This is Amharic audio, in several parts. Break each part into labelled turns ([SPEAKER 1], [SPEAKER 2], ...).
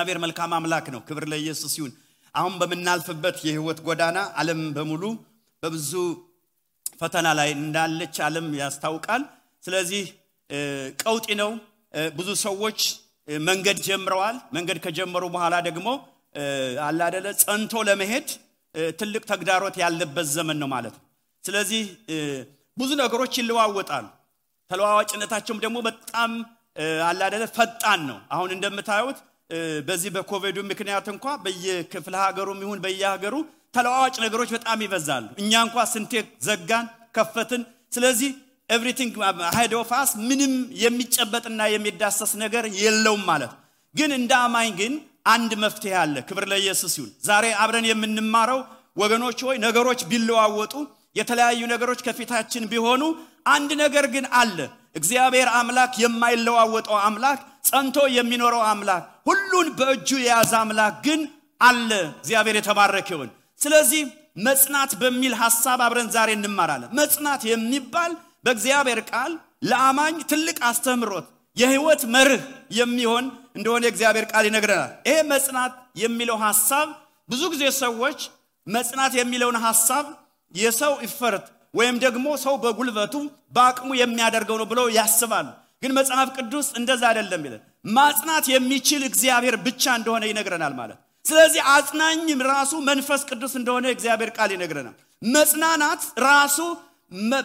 [SPEAKER 1] እግዚአብሔር መልካም አምላክ ነው ክብር ለኢየሱስ ይሁን አሁን በመናልፈበት የህይወት ጎዳና ዓለም በሙሉ በብዙ ፈተና ላይ እንዳለች ዓለም ያስታውቃል ስለዚህ ቀውጢ ነው ብዙ ሰዎች መንገድ ጀምረዋል መንገድ ከጀመሩ በኋላ ደግሞ አላደለ ጸንቶ ለመሄድ ትልቅ ተግዳሮት ያለበት ዘመን ነው ማለት ነው ስለዚህ ብዙ ነገሮች ይለዋወጣሉ ተለዋዋጭነታቸውም ደግሞ በጣም አላደለ ፈጣን ነው አሁን እንደምታዩት በዚህ በኮቪድ ምክንያት እንኳን በየክፍለ ሀገሩም ይሁን በየሀገሩ ተለዋዋጭ ነገሮች በጣም ይበዛሉ እኛ እንኳን ስንቴ ዘጋን ከፈትን ስለዚህ everything ahead of us ምንም የሚጨበጥና የሚዳሰስ ነገር የለውም ማለት ግን እንደ አማኝ ግን አንድ መፍትሄ አለ ክብር ለኢየሱስ ይሁን ዛሬ አብረን የምንማረው ወገኖች ሆይ ነገሮች ቢለዋወጡ የተለያዩ ነገሮች ከፊታችን ቢሆኑ አንድ ነገር ግን አለ እግዚአብሔር አምላክ የማይለዋወጠው አምላክ ጸንቶ የሚኖረው አምላክ ሁሉን በእጁ የያዘ አምላክ ግን አለ እግዚአብሔር የተባረከ ይሁን ስለዚህ መጽናት በሚል ሐሳብ አብረን ዛሬ እንማራለን መጽናት የሚባል በእግዚአብሔር ቃል ለአማኝ ትልቅ አስተምሮት የህይወት መርህ የሚሆን እንደሆነ እግዚአብሔር ቃል ይነግረናል ይሄ መጽናት የሚለው ሐሳብ ብዙ ጊዜ ሰዎች መጽናት የሚለውን ሐሳብ የሰው ኢፈርት ወይም ደግሞ ሰው በጉልበቱ በአቅሙ የሚያደርገው ነው ብለው ያስባሉ ግን መጽሐፍ ቅዱስ እንደዛ አይደለም ይላል ማጽናት የሚችል እግዚአብሔር ብቻ እንደሆነ ይነግረናል ማለት ስለዚህ አጽናኝም ራሱ መንፈስ ቅዱስ እንደሆነ እግዚአብሔር ቃል ይነግረናል መጽናናት ራሱ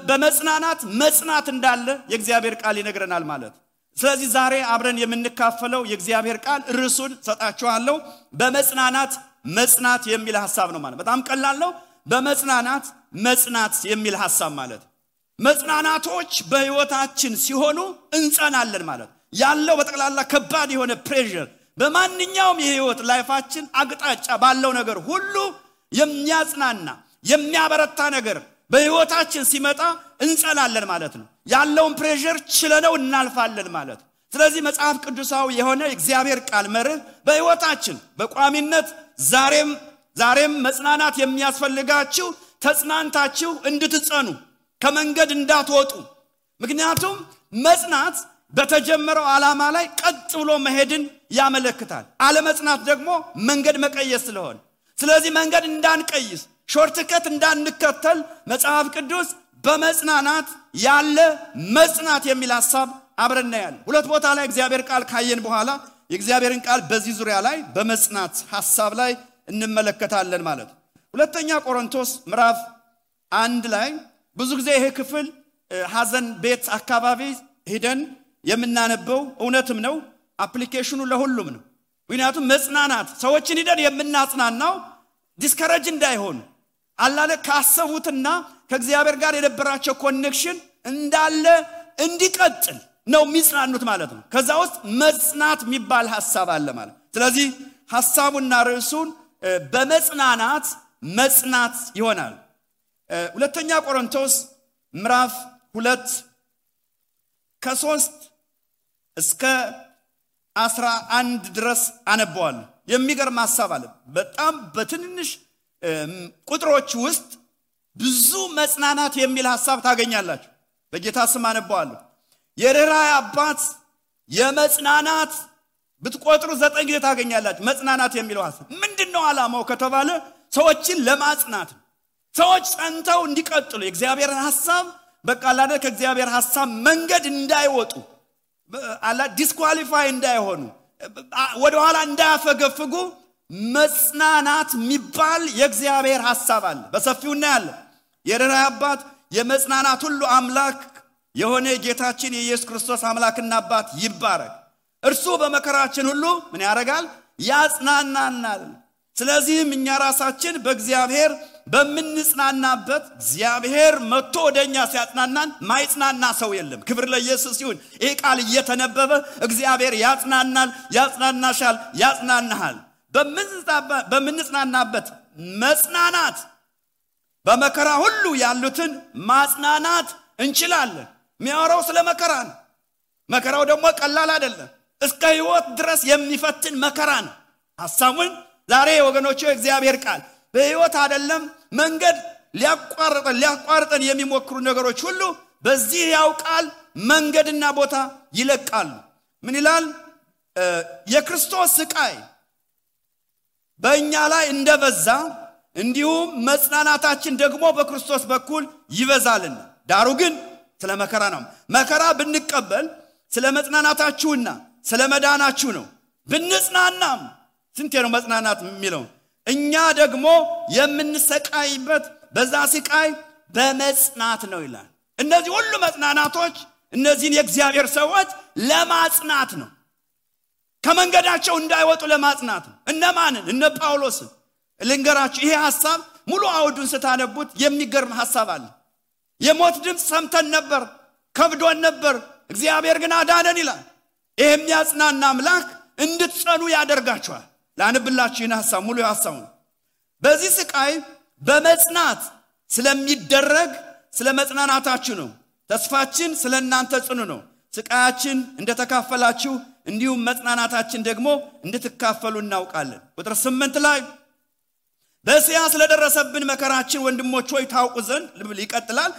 [SPEAKER 1] በመጽናናት መጽናት እንዳለ የእግዚአብሔር ቃል ይነግረናል ማለት ስለዚህ ዛሬ አብረን የምንካፈለው የእግዚአብሔር ቃል ርዕሱን ሰጣችኋለሁ በመጽናናት መጽናት የሚል ሐሳብ ነው ማለት በጣም ቀላል ነው በመጽናናት መጽናት የሚል ሐሳብ ማለት መጽናናቶች በህይወታችን ሲሆኑ እንጸናለን ማለት ያለው በጠቅላላ ከባድ የሆነ ፕሬሸር በማንኛውም የህይወት ላይፋችን አቅጣጫ ባለው ነገር ሁሉ የሚያጽናና የሚያበረታ ነገር በህይወታችን ሲመጣ እንጸናለን ማለት ነው ያለውን ፕሬሸር ችለነው እናልፋለን ማለት ስለዚህ መጽሐፍ ቅዱሳዊ የሆነ እግዚአብሔር ቃል መርህ በህይወታችን በቋሚነት ዛሬም መጽናናት የሚያስፈልጋችሁ ተጽናንታችሁ እንድትጸኑ ከመንገድ እንዳትወጡ ምክንያቱም መጽናት በተጀመረው ዓላማ ላይ ቀጥ ብሎ መሄድን ያመለክታል አለመጽናት ደግሞ መንገድ መቀየስ ስለሆነ ስለዚህ መንገድ እንዳንቀይስ ሾርትከት እንዳንከተል መጽሐፍ ቅዱስ በመጽናናት ያለ መጽናት የሚል ሐሳብ አብረን እናያለን ሁለት ቦታ ላይ እግዚአብሔር ቃል ካየን በኋላ የእግዚአብሔርን ቃል በዚህ ዙሪያ ላይ በመጽናት ሐሳብ ላይ እንመለከታለን ማለት ሁለተኛ ቆሮንቶስ ምዕራፍ 1 ላይ ብዙ ጊዜ ይሄ ክፍል ሐዘን ቤት አካባቢ ሄደን የምናነበው እውነትም ነው አፕሊኬሽኑ ለሁሉም ነው ምክንያቱም መጽናናት ሰዎችን ሄደን የምናጽናናው ዲስከሬጅ እንዳይሆኑ አላለ ካሰቡትና ከእግዚአብሔር ጋር የነበራቸው ኮኔክሽን እንዳለ እንዲቀጥል ነው የሚጽናኑት ማለት ነው ከዛ ውስጥ መጽናት የሚባል ሐሳብ አለ ማለት ስለዚህ ሐሳቡና ርዕሱን በመጽናናት መጽናት ይሆናል ሁለተኛ ቆሮንቶስ ምዕራፍ 2 ከ3 እስከ 11 ድረስ አነባዋለሁ የሚገርም ሐሳብ አለ በጣም በትንንሽ ቁጥሮች ውስጥ ብዙ መጽናናት የሚል ሐሳብ ታገኛላችሁ በጌታ ስም አነባዋለሁ የርኅራኄ አባት የመጽናናት ብትቆጥሩ 9 ጊዜ ታገኛላችሁ መጽናናት የሚለው ሐሳብ ምንድነው ዓላማው ከተባለ ሰዎችን ለማጽናት ሰዎች ጸንተው እንዲቀጥሉ የእግዚአብሔር ሐሳብ በቃላደ ከእግዚአብሔር ሐሳብ መንገድ እንዳይወጡ አላ ዲስኳሊፋይ እንዳይሆኑ ወደ ኋላ እንዳያፈገፍጉ መጽናናት የሚባል የእግዚአብሔር ሐሳብ አለ በሰፊው እናያለን የርኅራኄ አባት የመጽናናት ሁሉ አምላክ የሆነ ጌታችን የኢየሱስ ክርስቶስ አምላክና አባት ይባረክ እርሱ በመከራችን ሁሉ ምን ያደርጋል ያጽናናናል ስለዚህም እኛ ራሳችን በእግዚአብሔር በመንጽናናበት እግዚአብሔር መጥቶ ወደኛ ሲያጽናናን ማይጽናና ሰው የለም ክብር ለኢየሱስ ይሁን ይሄ ቃል እየተነበበ እግዚአብሔር ያጽናናል ያጽናናሻል ያጽናናሃል በመንጽናናበት መጽናናት በመከራ ሁሉ ያሉትን ማጽናናት እንችላለን የሚያወራው ስለ መከራ ነው መከራው ደግሞ ቀላል አይደለም እስከ ህይወት ድረስ የሚፈትን መከራ ነው ሐሳቡን ዛሬ ወገኖቼ እግዚአብሔር ቃል በህይወት አይደለም መንገድ ሊያቋርጠን የሚሞክሩ ነገሮች ሁሉ በዚህ ያውቃል መንገድና ቦታ ይለቃሉ ምን ይላል የክርስቶስ ስቃይ በእኛ ላይ እንደበዛ እንዲሁም መጽናናታችን ደግሞ በክርስቶስ በኩል ይበዛልና ዳሩ ግን ስለ መከራ ነው መከራ ብንቀበል ስለ መጽናናታችሁና ስለ መዳናችሁ ነው ብንጽናናም ስንቴ ነው መጽናናት የሚለው እኛ ደግሞ የምንሰቃይበት በዛ ስቃይ በመጽናት ነው ይላል እነዚህ ሁሉ መጽናናቶች እነዚህን የእግዚአብሔር ሰዎች ለማጽናት ነው ከመንገዳቸው እንዳይወጡ ለማጽናት ነው እነማንን እነ ጳውሎስን ልንገራችሁ ይሄ ሐሳብ ሙሉ አውዱን ስታነቡት የሚገርም ሐሳብ አለ የሞት ድምጽ ሰምተን ነበር ከብዶን ነበር እግዚአብሔር ግን አዳነን ይላል ይሄ የሚያጽናና አምላክ እንድትጸኑ ያደርጋችኋል ላንብላችሁ ይህን ሐሳብ ሙሉ ሐሳቡ በዚህ ስቃይ በመጽናት ስለሚደረግ ስለ መጽናናታችሁ ነው ተስፋችን ስለናንተ ጽኑ ነው ስቃያችን እንደተካፈላችሁ እንዲሁም መጽናናታችን ደግሞ እንድትካፈሉ እናውቃለን ቁጥር 8 ላይ በእስያ ስለደረሰብን መከራችን ወንድሞች ሆይ ታውቁ ዘንድ ይቀጥላል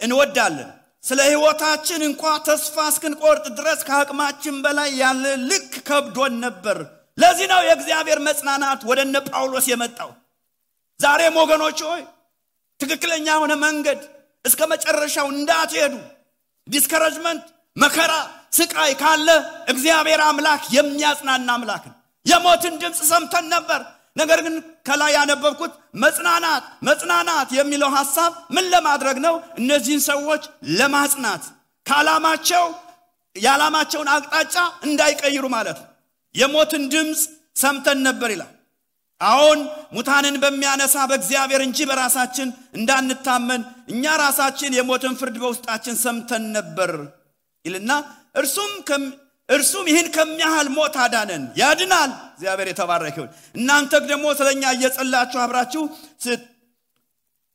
[SPEAKER 1] እንወዳለን ስለ ሕይወታችን እንኳን ተስፋ እስክንቆርጥ ድረስ ከአቅማችን በላይ ያለ ልክ ከብዶን ነበር ለዚህ ነው የእግዚአብሔር መጽናናት ወደነ ጳውሎስ የመጣው ዛሬም ወገኖች ሆይ ትክክለኛ ሆነ መንገድ እስከ መጨረሻው እንዳትሄዱ ዲስከሬጅመንት መከራ ስቃይ ካለ እግዚአብሔር አምላክ የሚያጽናና አምላክ ነው የሞትን ድምጽ ሰምተን ነበር ነገር ግን ከላይ ያነበብኩት መጽናናት የሚለው ሐሳብ ምን ለማድረግ ነው እነዚህን ሰዎች ለማጽናት ያላማቸውን አቅጣጫ እንዳይቀይሩ ማለት ነው የሞትን ድምጽ ሰምተን ነበር ይላል አሁን ሙታንን በሚያነሳ በእግዚአብሔር እንጂ በራሳችን እንዳንታመን እኛ ራሳችን የሞትን ፍርድ በውስጣችን ሰምተን ነበር ይልና እርሱም ይህን ከሚያህል ሞት አዳነን ያድናል እግዚአብሔር የተባረከ ይሁን እናንተ ደግሞ ስለኛ እየጸላችሁ አብራችሁ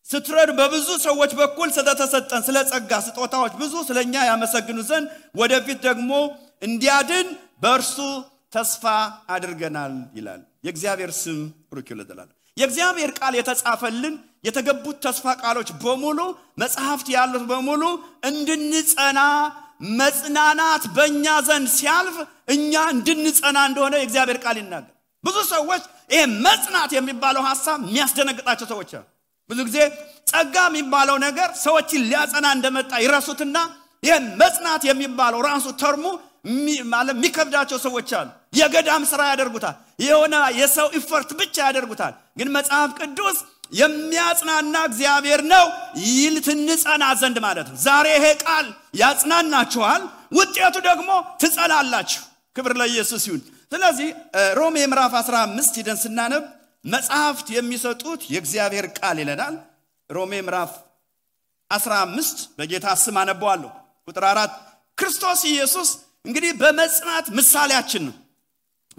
[SPEAKER 1] ስትረዱ በብዙ ሰዎች በኩል ስለተሰጠን ስለ ጸጋ ስጦታዎች ብዙ ስለኛ ያመሰግኑ ዘንድ ወደፊት ደግሞ እንዲያድን በእርሱ ተስፋ አድርገናል ይላል የእግዚአብሔር ስም ብሩክ ይሁን የእግዚአብሔር ቃል የተጻፈልን የተገቡት ተስፋ ቃሎች በሙሉ መጽሐፍት ያሉት በሙሉ እንድንጸና መጽናናት በእኛ ዘንድ ሲያልፍ እኛ እንድንጸና እንደሆነ የእግዚአብሔር ቃል ይናገር ብዙ ሰዎች ይሄ መጽናት የሚባለው ሐሳብ የሚያስደነግጣቸው ሰዎች አሉ ብዙ ጊዜ ጸጋ የሚባለው ነገር ሰዎችን ሊያጸና እንደመጣ ይረሱትና ይሄ መጽናት የሚባለው ራሱ ተርሙ ማለት የሚከብዳቸው ሰዎች አሉ የገዳም ሥራ ያደርጉታል የሆነ የሰው ኢፈርት ብቻ ያደርጉታል ግን መጽሐፍ ቅዱስ የሚያጽናና እግዚአብሔር ነው ይልትንጸና ዘንድ ማለት ነው ዛሬ ይሄ ቃል ያጽናናችኋል ውጤቱ ደግሞ ትጸናላችሁ ክብር ለኢየሱስ ይሁን ስለዚህ ሮሜ ምዕራፍ 15 ሄደን ስናነብ መጽሐፍት የሚሰጡት የእግዚአብሔር ቃል ይለናል ሮሜ ምዕራፍ 15 በጌታ ስም አነባዋለሁ ቁጥር 4 ክርስቶስ ኢየሱስ እንግዲህ በመጽናት ምሳሌያችን ነው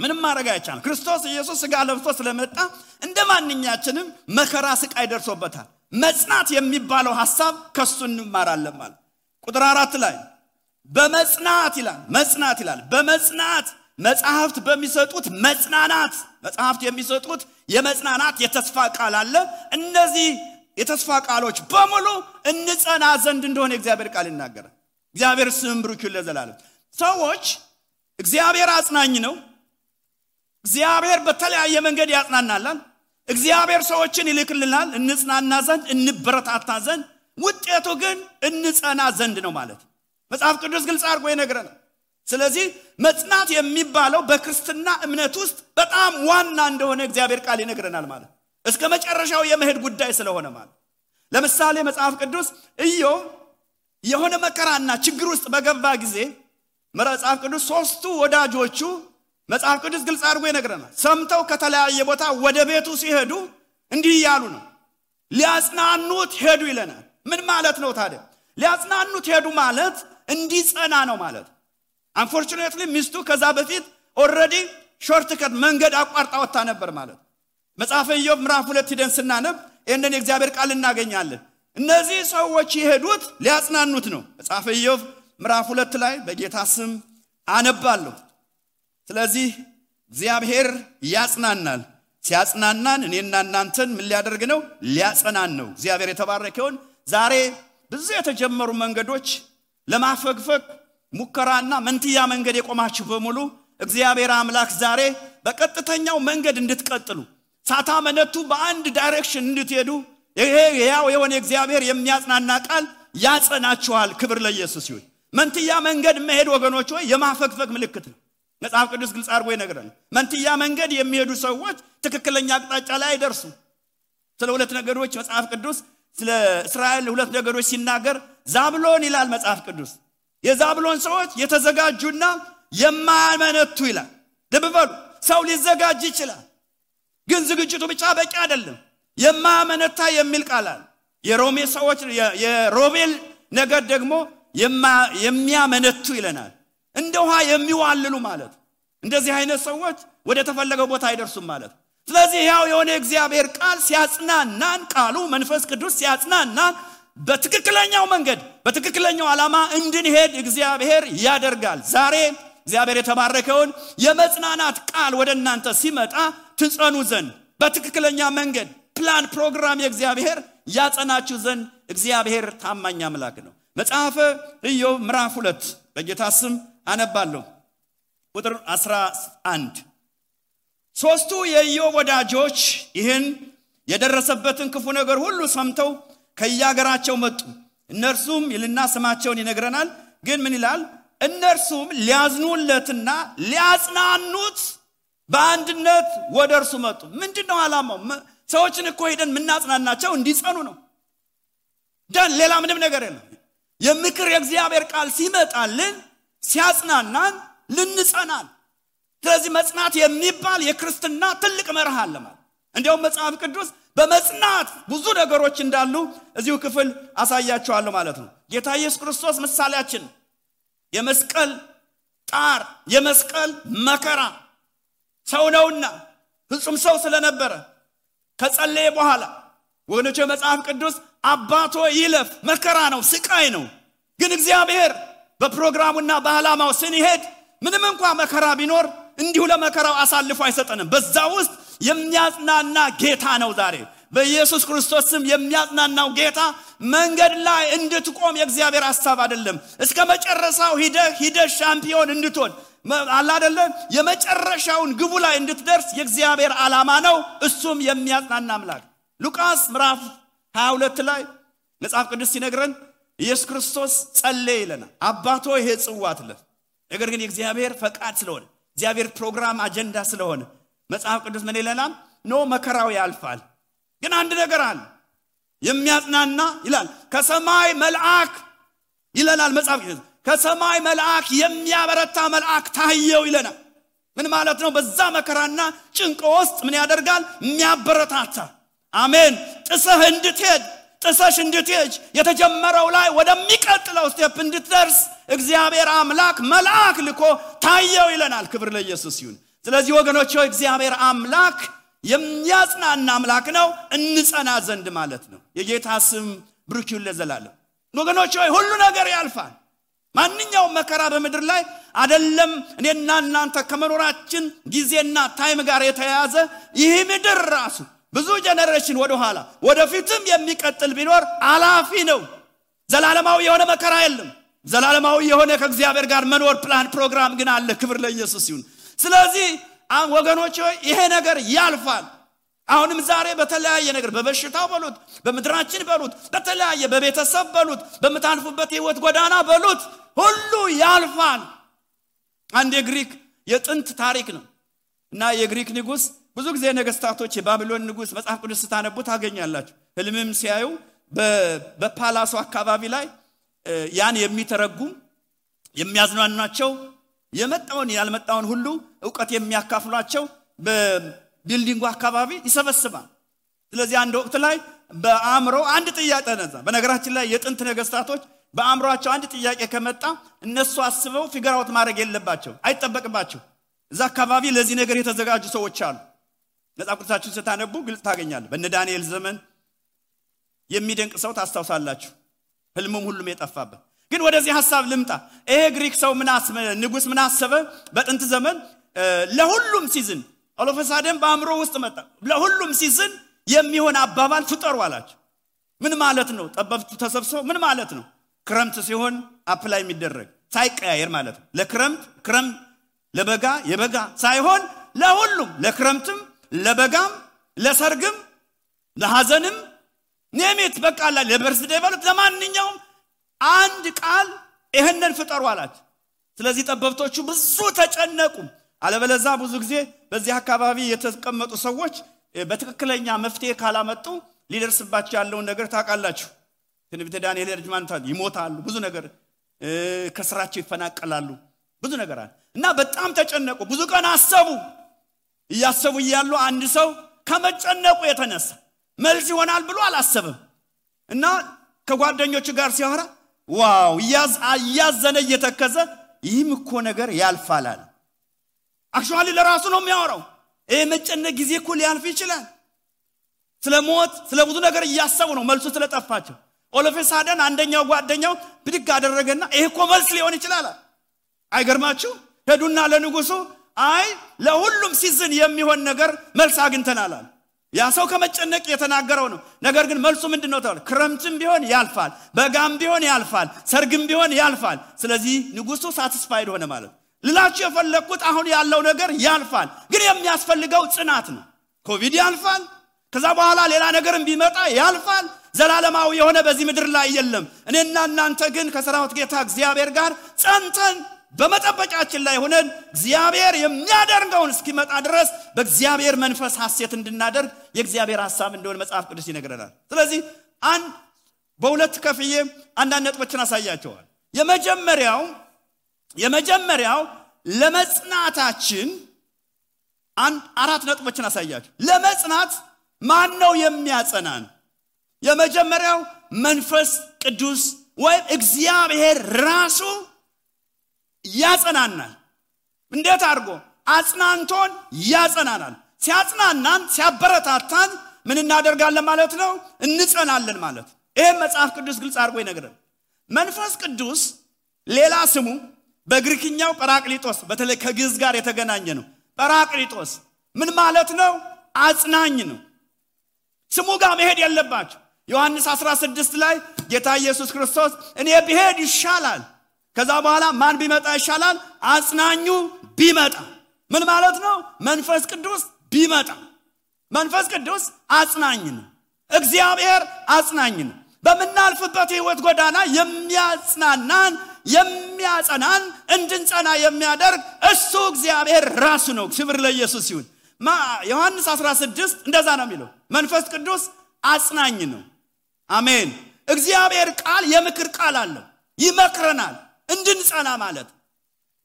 [SPEAKER 1] ምንም ማድረግ አይቻልም ክርስቶስ ኢየሱስ ሥጋ ለብሶ ስለመጣ እንደማንኛችንም መከራ ስቃይ ደርሶበታል መጽናት የሚባለው ሐሳብ ከሱ እንማራለን ማለት ቁጥር 4 ላይ በመጽናት ይላል በመጽናት መጽሐፍት በሚሰጡት መጽሐፍት የሚሰጡት የመጽናናት የተስፋ ቃል አለ እነዚህ የተስፋ ቃሎች በሙሉ እንጸና ዘንድ እንደሆነ እግዚአብሔር ቃል ይናገራል እግዚአብሔር ስም ብሩክ ይሁን ለዘላለም ሰዎች እግዚአብሔር አጽናኝ ነው እግዚአብሔር በተለያየ መንገድ ያጽናናል እግዚአብሔር ሰዎችን ይልክልናል እንጽናና ዘንድ እንበረታታ ዘንድ ውጤቱ ግን እንጸና ዘንድ ነው ማለት መጽሐፍ ቅዱስ ግልጽ አድርጎ ይነግረናል ስለዚህ መጽናት የሚባለው በክርስትና እምነት ውስጥ በጣም ዋና እንደሆነ እግዚአብሔር ቃል ይነግረናል ማለት እስከ መጨረሻው የመሄድ ጉዳይ ስለሆነ ማለት ለምሳሌ መጽሐፍ ቅዱስ ኢዮብ የሆነ መከራና ችግር ውስጥ በገባ ጊዜ መጽሐፍ ቅዱስ ሶስቱ ወዳጆቹ መጽሐፍ ቅዱስ ግልጽ አድርጎ ይነግረናል ሰምተው ከተለያየ ቦታ ወደ ቤቱ ሲሄዱ እንዲህ ያሉ ነው ሊያጽናኑት ሄዱ ይለናል ምን ማለት ነው ታዲያ ሊያጽናኑት ሄዱ ማለት እንዲጸና ነው ማለት unfortunately ሚስቱ ከዛ በፊት already shortcut መንገድ አቋርጣ ወጣ ነበር ማለት መጽሐፈ ኢዮብ ምዕራፍ 2 ሄደን ስናነብ እነን የእግዚአብሔር ቃል እናገኛለን እነዚህ ሰዎች ይሄዱት ሊያጽናኑት ነው መጽሐፈ ኢዮብ ምዕራፍ 2 ላይ በጌታ ስም አነባለሁ ስለዚህ እግዚአብሔር ያጽናናል ሲያጽናናን እኔና እናንተን ምን ሊያደርግ ነው ሊያጸናን ነው እግዚአብሔር የተባረከውን ዛሬ ብዙ የተጀመሩ መንገዶች ለማፈግፈግ ሙከራና መንትያ መንገድ የቆማችሁ በሙሉ እግዚአብሔር አምላክ ዛሬ በቀጥተኛው መንገድ እንድትቀጥሉ ሳታመነቱ በአንድ ዳይሬክሽን እንድትሄዱ ይሄ ያው የሆነ እግዚአብሔር የሚያጽናና ቃል ያጸናችኋል። ክብር ለኢየሱስ ይሁን። መንትያ መንገድ መሄድ ወገኖች ሆይ የማፈግፈግ ምልክት ነው። መጽሐፍ ቅዱስ ግልጽ አድርጎ ይነግረናል። መንትያ መንገድ የሚሄዱ ሰዎች ትክክለኛ አቅጣጫ ላይ አይደርሱም። ስለ ሁለት ነገዶች መጽሐፍ ቅዱስ ስለ እስራኤል ሁለት ነገዶች ሲናገር ዛብሎን ይላል መጽሐፍ ቅዱስ። የዛብሎን ሰዎች የተዘጋጁና የማያመነቱ ይላል። ልብ በሉ፣ ሰው ሊዘጋጅ ይችላል፣ ግን ዝግጅቱ ብቻ በቂ አይደለም። የማያመነታ የሚል ቃል አለ። የሮሜ ሰዎች የሮቤል ነገድ ደግሞ የሚያመነቱ ይለናል። እንደ ውሃ የሚዋልሉ ማለት። እንደዚህ አይነት ሰዎች ወደ ተፈለገው ቦታ አይደርሱም ማለት። ስለዚህ ያው የሆነ እግዚአብሔር ቃል ሲያጽናናን፣ ቃሉ መንፈስ ቅዱስ ሲያጽናናን በትክክለኛው መንገድ በትክክለኛው ዓላማ እንድንሄድ እግዚአብሔር ያደርጋል። ዛሬ እግዚአብሔር የተባረከውን የመጽናናት ቃል ወደ እናንተ ሲመጣ ትጸኑ ዘንድ በትክክለኛ መንገድ ፕላን ፕሮግራም የእግዚአብሔር ያጸናችሁ ዘንድ እግዚአብሔር ታማኝ አምላክ ነው። መጽሐፈ ኢዮብ ምዕራፍ 2 በጌታ ስም አነባለሁ። ቁጥር 11 ሶስቱ የኢዮብ ወዳጆች ይህን የደረሰበትን ክፉ ነገር ሁሉ ሰምተው ከያገራቸው መጡ። እነርሱም ይልና ስማቸውን ይነግረናል። ግን ምን ይላል? እነርሱም ሊያዝኑለትና ሊያጽናኑት በአንድነት ወደ እርሱ መጡ። ምንድነው ዓላማው? ሰዎችን እኮ ሄደን ምናጽናናቸው እንዲጸኑ ነው። ደን ሌላ ምንም ነገር የለም። የምክር የእግዚአብሔር ቃል ሲመጣልን ሲያጽናናን ልንጸናል። ስለዚህ መጽናት የሚባል የክርስትና ትልቅ መርህ አለ ማለት። እንዲያውም መጽሐፍ ቅዱስ በመጽናት ብዙ ነገሮች እንዳሉ እዚሁ ክፍል አሳያችኋለሁ ማለት ነው። ጌታ ኢየሱስ ክርስቶስ ምሳሌያችን የመስቀል ጣር የመስቀል መከራ ሰው ነውና ፍጹም ሰው ስለነበረ ከጸለየ በኋላ ወገኖች መጽሐፍ ቅዱስ አባቶ ይለፍ መከራ ነው ስቃይ ነው። ግን እግዚአብሔር በፕሮግራሙና በዓላማው ስንሄድ ምንም እንኳን መከራ ቢኖር እንዲሁ ለመከራው አሳልፎ አይሰጠንም። በዛ ውስጥ የሚያጽናና ጌታ ነው። ዛሬ በኢየሱስ ክርስቶስ ስም የሚያጽናናው ጌታ መንገድ ላይ እንድትቆም የእግዚአብሔር ሐሳብ አይደለም። እስከ መጨረሻው ሂደህ ሻምፒዮን እንድትሆን አለ አይደለ? የመጨረሻውን ግቡ ላይ እንድትደርስ የእግዚአብሔር ዓላማ ነው። እሱም የሚያጽናና አምላክ። ሉቃስ ምዕራፍ 22 ላይ መጽሐፍ ቅዱስ ሲነግረን ኢየሱስ ክርስቶስ ጸለየ ይለናል። አባቶ ይሄ ጽዋ አትለፍ። ነገር ግን የእግዚአብሔር ፈቃድ ስለሆነ እግዚአብሔር ፕሮግራም አጀንዳ ስለሆነ መጽሐፍ ቅዱስ ምን ይለናል? ኖ መከራው ያልፋል። ግን አንድ ነገር አለ የሚያጽናና ይላል። ከሰማይ መልአክ ይለናል መጽሐፍ ቅዱስ ከሰማይ መልአክ የሚያበረታ መልአክ ታየው ይለናል። ምን ማለት ነው? በዛ መከራና ጭንቅ ውስጥ ምን ያደርጋል? የሚያበረታታ። አሜን። ጥሰሽ እንድትሄድ የተጀመረው ላይ ወደሚቀጥለው ስቴፕ እንድትደርስ እግዚአብሔር አምላክ መልአክ ልኮ ታየው ይለናል። ክብር ለኢየሱስ ይሁን። ስለዚህ ወገኖች ሆይ እግዚአብሔር አምላክ የሚያጽናና አምላክ ነው፣ እንጸና ዘንድ ማለት ነው። የጌታ ስም ብሩክ ይሁን ለዘላለም። ወገኖች ሆይ ሁሉ ነገር ያልፋል። ማንኛውም መከራ በምድር ላይ አይደለም እኔና እናንተ ከመኖራችን ጊዜና ታይም ጋር የተያያዘ ይህ ምድር ራሱ ብዙ ጀነሬሽን ወደ ኋላ ወደፊትም የሚቀጥል ቢኖር አላፊ ነው። ዘላለማዊ የሆነ መከራ የለም። ዘላለማዊ የሆነ ከእግዚአብሔር ጋር መኖር ፕላን ፕሮግራም ግን አለ። ክብር ለኢየሱስ ይሁን። ስለዚህ ወገኖች ሆይ ይሄ ነገር ያልፋል። አሁንም ዛሬ በተለያየ ነገር በበሽታው በሉት በመድራችን በሉት በተለያየ በቤተሰብ በሉት በመታንፉበት ህይወት ጎዳና በሉት ሁሉ ያልፋል። አንድ የግሪክ የጥንት ታሪክ ነው እና የግሪክ ንጉስ ብዙ ጊዜ ነገስታቶች የባቢሎን ንጉስ መጽሐፍ ቅዱስ ስታነቡ ታገኛላችሁ። ህልምም ሲያዩ በፓላሱ አካባቢ ላይ ያን የሚተረጉም የሚያዝናናቸው የመጣውን ያልመጣውን ሁሉ ዕውቀት የሚያካፍሏቸው በቢልዲንጉ አካባቢ ይሰበስባል። ስለዚህ አንድ ወቅት ላይ በአእምሮ አንድ ጥያቄ ተነሳ። በነገራችን ላይ የጥንት ነገስታቶች በአእምሮአቸው አንድ ጥያቄ ከመጣ እነሱ አስበው ፊገር አውት ማድረግ የለባቸው አይጠበቅባቸው። እዛ አካባቢ ለዚህ ነገር የተዘጋጁ ሰዎች አሉ። መጽሐፍ ቅዱሳችሁን ስታነቡ ግልጽ ታገኛላችሁ። በእነ ዳንኤል ዘመን የሚደንቅ ሰው ታስታውሳላችሁ። ህልሙም ሁሉም የጠፋበት። ግን ወደዚህ ሐሳብ ልምጣ። ይሄ ግሪክ ሰው ንጉስ ምን አሰበ? በጥንት ዘመን ለሁሉም ሲዝን አሎፈሳደም በአእምሮ ውስጥ መጣ። ለሁሉም ሲዝን የሚሆን አባባል ፍጠሩ አላቸው። ምን ማለት ነው? ጠበብቱ ተሰብስበው ምን ማለት ነው? ክረምት ሲሆን አፕላይ የሚደረግ ሳይቀያየር ማለት ነው። ለክረምት ለበጋ የበጋ ሳይሆን ለሁሉም ለክረምትም ለበጋም ለሰርግም ለሐዘንም ኔሜት በቃላ ለበርስዴ ባሉት ለማንኛውም አንድ ቃል ይሄንን ፍጠሩ አላቸው። ስለዚህ ጠበብቶቹ ብዙ ተጨነቁ። አለበለዛ ብዙ ጊዜ በዚህ አካባቢ የተቀመጡ ሰዎች በትክክለኛ መፍትሄ ካላመጡ ሊደርስባቸው ያለው ነገር ታውቃላችሁ። ትንቢተ ዳንኤል ረጅማንታል ይሞታሉ፣ ብዙ ነገር ከስራቸው ይፈናቀላሉ፣ ብዙ ነገር አለ እና በጣም ተጨነቁ። ብዙ ቀን አሰቡ። እያሰቡ ይያሉ አንድ ሰው ከመጨነቁ የተነሳ መልስ ይሆናል ብሎ አላሰበም እና ከጓደኞቹ ጋር ሲያወራ ዋው ያዘነ እየተከዘ ይህም እኮ ነገር ያልፋል አለ። አክቹአሊ ለራሱ ነው የሚያወራው። ይሄ መጨነቅ ጊዜ እኮ ሊያልፍ ይችላል። ስለሞት ስለብዙ ነገር እያሰቡ ነው መልሱ ስለጠፋቸው። ኦሎፌሳደን አንደኛው ጓደኛው ብድግ አደረገና ይሄ እኮ መልስ ሊሆን ይችላል። አይገርማችሁ? ሄዱና ለንጉሱ አይ ለሁሉም ሲዝን የሚሆን ነገር መልስ አግኝተናል አለ። ያ ሰው ከመጨነቅ የተናገረው ነው። ነገር ግን መልሱ ምንድነው ታውቃለ? ክረምትም ቢሆን ያልፋል፣ በጋም ቢሆን ያልፋል፣ ሰርግም ቢሆን ያልፋል። ስለዚህ ንጉሱ ሳቲስፋይድ ሆነ ማለት። ልላችሁ የፈለኩት አሁን ያለው ነገር ያልፋል፣ ግን የሚያስፈልገው ጽናት ነው። ኮቪድ ያልፋል፣ ከዛ በኋላ ሌላ ነገርም ቢመጣ ያልፋል። ዘላለማዊ የሆነ በዚህ ምድር ላይ የለም። እኔና እናንተ ግን ከሰራዊት ጌታ እግዚአብሔር ጋር ጸንተን በመጠበቃችን ላይ ሆነን እግዚአብሔር የሚያደርገውን እስኪመጣ ድረስ በእግዚአብሔር መንፈስ ሐሴት እንድናደርግ የእግዚአብሔር ሐሳብ እንደሆነ መጽሐፍ ቅዱስ ይነግረናል። ስለዚህ በሁለት ከፍዬ አንዳንድ ነጥቦችን አሳያቸዋል። የመጀመሪያው ለመጽናታችን አራት ነጥቦችን አሳያቸው። ለመጽናት ማን ነው የሚያጸናን? የመጀመሪያው መንፈስ ቅዱስ ወይም እግዚአብሔር ራሱ ያጸናናል። እንዴት አድርጎ? አጽናንቶን ያጸናናል። ሲያጽናናን ሲያበረታታን ምን እናደርጋለን ማለት ነው? እንጸናለን ማለት። ይሄ መጽሐፍ ቅዱስ ግልጽ አድርጎ ይነግረናል። መንፈስ ቅዱስ ሌላ ስሙ በግሪክኛው ጰራቅሊጦስ፣ በተለይ ከግዕዝ ጋር የተገናኘ ነው። ጰራቅሊጦስ ምን ማለት ነው? አጽናኝ ነው። ስሙ ጋር መሄድ የለባችሁ። ዮሐንስ 16 ላይ ጌታ ኢየሱስ ክርስቶስ እኔ ብሄድ ይሻላል፣ ከዛ በኋላ ማን ቢመጣ ይሻላል? አጽናኙ ቢመጣ። ምን ማለት ነው? መንፈስ ቅዱስ ቢመጣ። መንፈስ ቅዱስ አጽናኝ ነው። እግዚአብሔር አጽናኝ ነው። በመናልፍበት ህይወት ጎዳና የሚያጽናናን የሚያጸናን እንድንጸና የሚያደርግ እሱ እግዚአብሔር ራሱ ነው። ክብር ለኢየሱስ ይሁን። ዮሐንስ 16 እንደዛ ነው የሚለው። መንፈስ ቅዱስ አጽናኝ ነው። አሜን። እግዚአብሔር ቃል የምክር ቃል አለው፣ ይመክረናል እንድንጸና ማለት።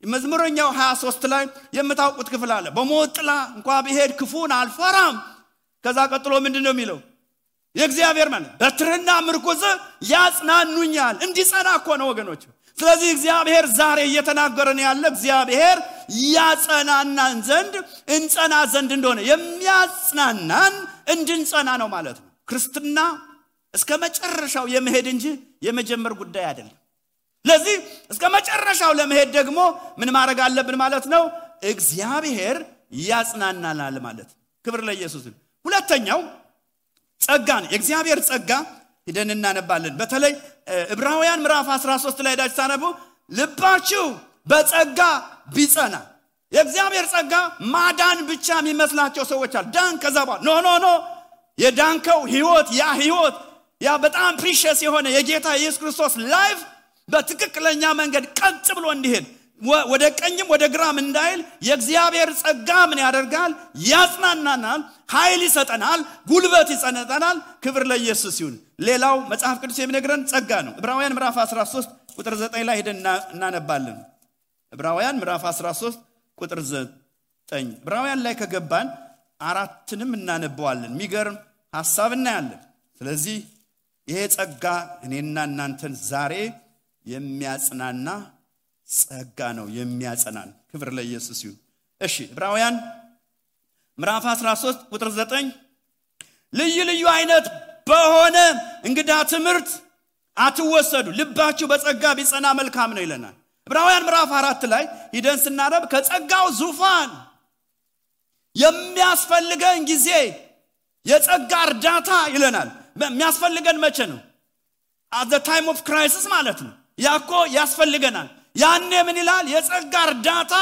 [SPEAKER 1] መዝሙረኛው 23 ላይ የምታውቁት ክፍል አለ። በሞት ጥላ እንኳን ብሄድ ክፉን አልፈራም። ከዛ ቀጥሎ ምንድነው የሚለው? የእግዚአብሔር ማለት በትርና ምርኩዝ ያጽናኑኛል። እንዲጸና እኮ ነው ወገኖች። ስለዚህ እግዚአብሔር ዛሬ እየተናገረን ያለ እግዚአብሔር ያጸናናን ዘንድ እንጸና ዘንድ እንደሆነ የሚያጽናናን እንድንጸና ነው ማለት ነው። ክርስትና እስከ መጨረሻው የመሄድ እንጂ የመጀመር ጉዳይ አይደለም። ለዚህ እስከ መጨረሻው ለመሄድ ደግሞ ምን ማድረግ አለብን ማለት ነው? እግዚአብሔር ያጽናናናል ማለት። ክብር ለኢየሱስ። ሁለተኛው ጸጋ ነው። የእግዚአብሔር ጸጋ ሄደን እናነባለን። በተለይ ዕብራውያን ምዕራፍ 13 ላይ ዳች ታነቡ ልባችሁ በጸጋ ቢጸና። የእግዚአብሔር ጸጋ ማዳን ብቻ የሚመስላቸው ሰዎች አሉ። ዳን ከዛ በኋላ ኖ የዳንከው ህይወት ያ በጣም ፕሪሺየስ የሆነ የጌታ ኢየሱስ ክርስቶስ ላይፍ በትክክለኛ መንገድ ቀጥ ብሎ እንዲሄድ ወደ ቀኝም ወደ ግራም እንዳይል የእግዚአብሔር ጸጋ ምን ያደርጋል? ያጽናናናል፣ ኃይል ይሰጠናል፣ ጉልበት ይሰጠናል። ክብር ለኢየሱስ ይሁን። ሌላው መጽሐፍ ቅዱስ የሚነግረን ጸጋ ነው። ዕብራውያን ምዕራፍ 13 ቁጥር 9 ላይ ሄደን እናነባለን። ዕብራውያን ምዕራፍ 13 ቁጥር 9 ዕብራውያን ላይ ከገባን አራትንም እናነባዋለን። የሚገርም ሐሳብ እናያለን። ስለዚህ ይሄ ጸጋ እኔና እናንተን ዛሬ የሚያጽናና ጸጋ ነው፣ የሚያጸናን። ክብር ለኢየሱስ ይሁን። እሺ ዕብራውያን ምዕራፍ 13 ቁጥር 9 ልዩ አይነት በሆነ እንግዳ ትምህርት አትወሰዱ፣ ልባችሁ በጸጋ ቢጸና መልካም ነው ይለናል። ዕብራውያን ምዕራፍ 4 ላይ ሂደን ስናነብ ከጸጋው ዙፋን የሚያስፈልገን ጊዜ የጸጋ እርዳታ ይለናል። የሚያስፈልገን መቼ ነው? at the time of crisis ማለት ነው። ያኮ ያስፈልገናል። ያኔ ምን ይላል? የጸጋ እርዳታ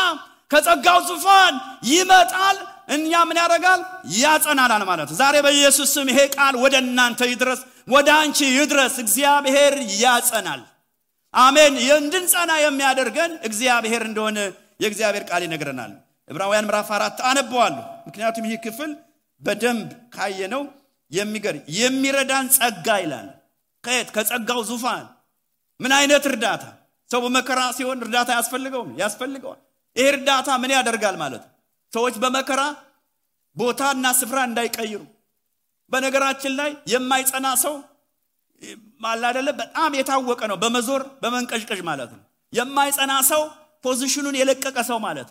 [SPEAKER 1] ከጸጋው ዙፋን ይመጣል፣ እኛ ምን ያደርጋል ያጸናናል ማለት ዛሬ በኢየሱስ ስም ይሄ ቃል ወደ እናንተ ይድረስ ወደ አንቺ ይድረስ እግዚአብሔር ያጸናል አሜን እንድንጸና የሚያደርገን እግዚአብሔር እንደሆነ የእግዚአብሔር ቃል ይነግረናል ዕብራውያን ምዕራፍ 4 አነበዋለሁ ምክንያቱም ይህ ክፍል በደንብ ካየነው የሚረዳን ጸጋ ይላል ከጸጋው ዙፋን ምን አይነት እርዳታ ሰው በመከራ ሲሆን እርዳታ ያስፈልገዋል ይሄ እርዳታ ምን ያደርጋል ማለት ሰዎች በመከራ ቦታና ስፍራ እንዳይቀይሩ በነገራችን ላይ የማይጸና ሰው ማላደለ በጣም የታወቀ ነው በመዞር በመንቀሽቀሽ ማለት ነው የማይጸና ሰው ፖዚሽኑን የለቀቀ ሰው ማለት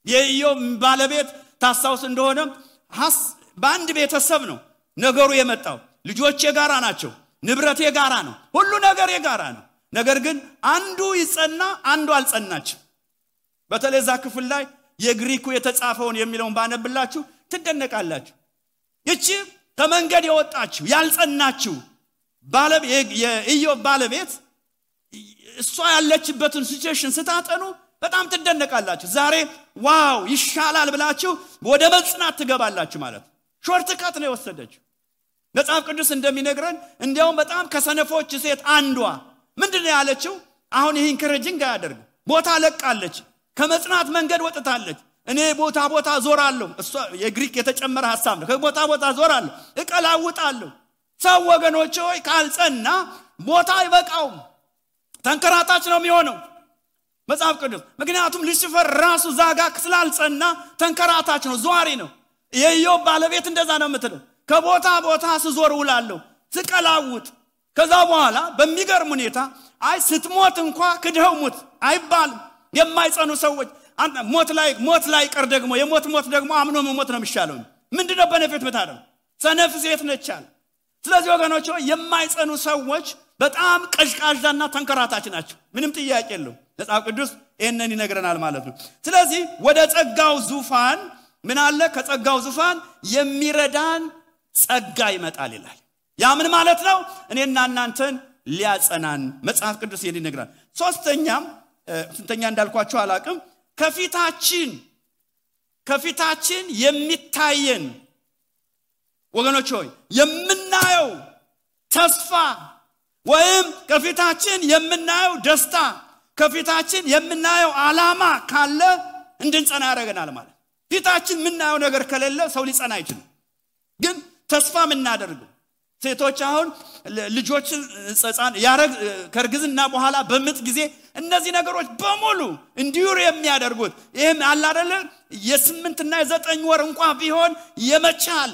[SPEAKER 1] የኢዮብ ባለቤት ታሳውስ እንደሆነ በአንድ ቤተሰብ ነው ነገሩ የመጣው ልጆች የጋራ ናቸው ንብረት የጋራ ነው ሁሉ ነገር የጋራ ነው ነገር ግን አንዱ ይጸና አንዱ አልጸናችም በተለዛ ክፍል ላይ የግሪኩ የተጻፈውን የሚለውን ባነብላችሁ ትደነቃላችሁ እቺ ከመንገድ የወጣችሁ ያልጸናችሁ የኢዮብ ባለቤት እሷ ያለችበትን ሲቹዌሽን ስታጠኑ በጣም ትደነቃላችሁ ዛሬ ዋው ይሻላል ብላችሁ ወደ መጽናት ትገባላችሁ ማለት ሾርት ካት ነው የወሰደችው መጽሐፍ ቅዱስ እንደሚነግረን እንዲያውም በጣም ከሰነፎች ሴት አንዷ ምንድነው ያለችው አሁን ይሄን ክረጅንግ ያደርግ ቦታ ለቃለች ከመጽናት መንገድ ወጥታለች እኔ ቦታ ዞራለሁ እሷ የግሪክ የተጨመረ ሐሳብ ነው ከቦታ ዞራለሁ እቀላውጣለሁ ሰው ወገኖች ሆይ ካልጸና ቦታ አይበቃው ተንከራታች ነው የሚሆነው መጽሐፍ ቅዱስ ምክንያቱም ሉሲፈር ራሱ ዛጋ ስላልጸና ተንከራታች ነው ዟሪ ነው የኢዮብ ባለቤት እንደዛ ነው የምትለው ከቦታ ስዞር ውላለሁ ስቀላውጥ ከዛ በኋላ በሚገርም ሁኔታ ስትሞት እንኳን ክደው ሞት አይባልም የማይጸኑ ሰዎች ሞት ላይ ቀር ደግሞ የሞት ደግሞ አምኖ መሞት ነው የሚሻለው ምንድነው በነፍት መታደም ሰነፍ ሴት ነቻል ስለዚህ ወገኖች የማይጸኑ ሰዎች በጣም ቀሽቃዣና ተንከራታች ናቸው ምንም ጥያቄ የለው መጽሐፍ ቅዱስ ይሄንን ይነግረናል ማለት ነው ስለዚህ ወደ ጸጋው ዙፋን ምን አለ ከጸጋው ዙፋን የሚረዳን ጸጋ ይመጣል ይላል ያ ምን ማለት ነው እኔና እናንተን ሊያጸናን መጽሐፍ ቅዱስ ይሄን ይነግራል ስንተኛ እንዳልኳችሁ አላቅም ከፊታችን የሚታየን ወገኖች ሆይ የምናየው ተስፋ ወይም ከፊታችን የምናየው ደስታ ከፊታችን የምናየው ዓላማ ካለ እንድንጸና ያደርገናል ማለት ፊታችን የምናየው ነገር ከሌለ ሰው ሊጸና አይችልም ግን ተስፋ የምናደርገው ሴቶች አሁን ልጆችን ጸጻን ከርግዝና በኋላ በምጥ ጊዜ እነዚህ ነገሮች በሙሉ እንዲዩር የሚያደርጉት ይሄም አለ አይደለ የ8 እና የ9 ወር እንኳን ቢሆን የመቻል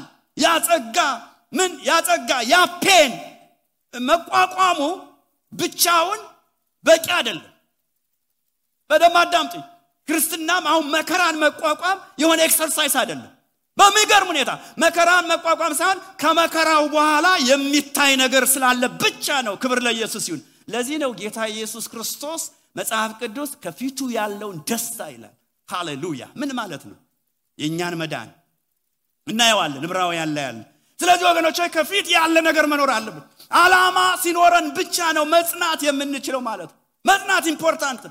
[SPEAKER 1] ያጸጋ ያፔን መቋቋሙ ብቻውን በቂ አይደለም በደማዳምጥ ክርስትናም አሁን መከራን መቋቋም የሆነ ኤክሰርሳይዝ አይደለም በሚገርም ሁኔታ መከራን መቋቋም ሳይሆን ከመከራው በኋላ የሚታይ ነገር ስላለ ብቻ ነው ክብር ለኢየሱስ ይሁን ለዚህ ነው ጌታ ኢየሱስ ክርስቶስ መጽሐፍ ቅዱስ ከፊቱ ያለውን ደስታ ይላል ሃሌሉያ ምን ማለት ነው የኛን መዳን እናየዋለን ዕብራውያን ላይ ያለ ስለዚህ ወገኖች ከፊት ያለ ነገር መኖር አለበት ዓላማ ሲኖረን ብቻ ነው መጽናት የምንችለው ማለት መጽናት ኢምፖርታንት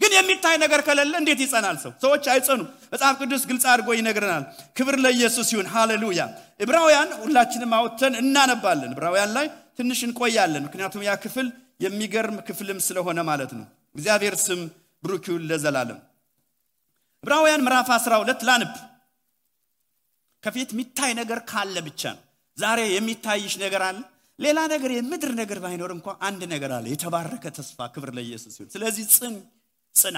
[SPEAKER 1] ግን የሚታይ ነገር ከሌለ እንዴት ይጸናል ሰዎች አይጸኑ መጽሐፍ ቅዱስ ግልጽ አድርጎ ይነግረናል ክብር ለኢየሱስ ይሁን ሃሌሉያ ዕብራውያን ሁላችንም አውጥተን እናነባለን ዕብራውያን ላይ ትንሽ እንቆያለን ምክንያቱም ያ ክፍል የሚገርም ክፍልም ስለሆነ ማለት ነው እግዚአብሔር ስም ብሩክ ይሁን ለዘላለም ዕብራውያን ምዕራፍ 12 ላንብ ከፊት የሚታይ ነገር ካለ ብቻ ነው ዛሬ የሚታይሽ ነገር አለ ሌላ ነገር የምድር ነገር ባይኖር እንኳን አንድ ነገር አለ የተባረከ ተስፋ ክብር ለኢየሱስ ይሁን ስለዚህ ጽና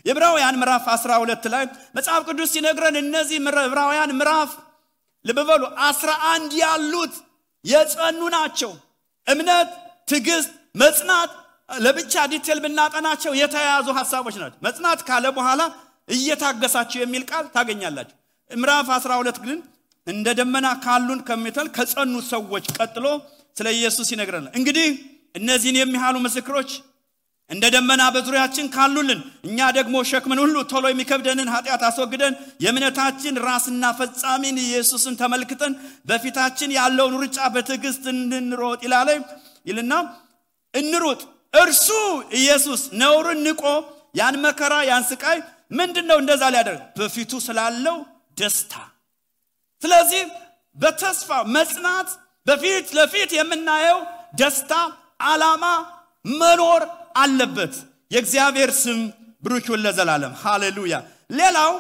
[SPEAKER 1] የዕብራውያን ምዕራፍ 12 ላይ መጽሐፍ ቅዱስ ሲነግረን እነዚህ ዕብራውያን ምዕራፍ ለበበሉ 11 ያሉት የጸኑ ናቸው እምነት ትዕግስት መጽናት ለብቻ ዲቴል ብናጠናቸው የተያያዙ ሐሳቦች ናቸው መጽናት ካለ በኋላ እየታገሳችሁ የሚል ቃል ታገኛላችሁ ምዕራፍ 12 ግን እንደ ደመና ካሉን ከመተል ከጸኑ ሰዎች ቀጥሎ ስለ ኢየሱስ ይነግረናል እንግዲህ እነዚህን የሚያሉ ምስክሮች እንደ ደመና በዙሪያችን ካሉልን እኛ ደግሞ ሸክምን ሁሉ ቶሎ የሚከብደንን ኃጢአት አስወግደን የእምነታችን ራስና ፈጻሚን ኢየሱስን ተመልክተን በፊታችን ያለውን ሩጫ በትዕግስት እንሮጥ ይልና እንሩጥ እርሱ ኢየሱስ ነውርን ንቆ ያን መከራ ያን ስቃይ ምንድነው እንደዛ ሊያደርግ በፊቱ ስላለው ደስታ ስለዚህ በተስፋ መጽናት በፊት ለፊት የምናየው ደስታ ዓላማ መኖር አለበት የእግዚአብሔር ስም ብሩክ ይሁን ለዘላለም ሃሌሉያ ሌላው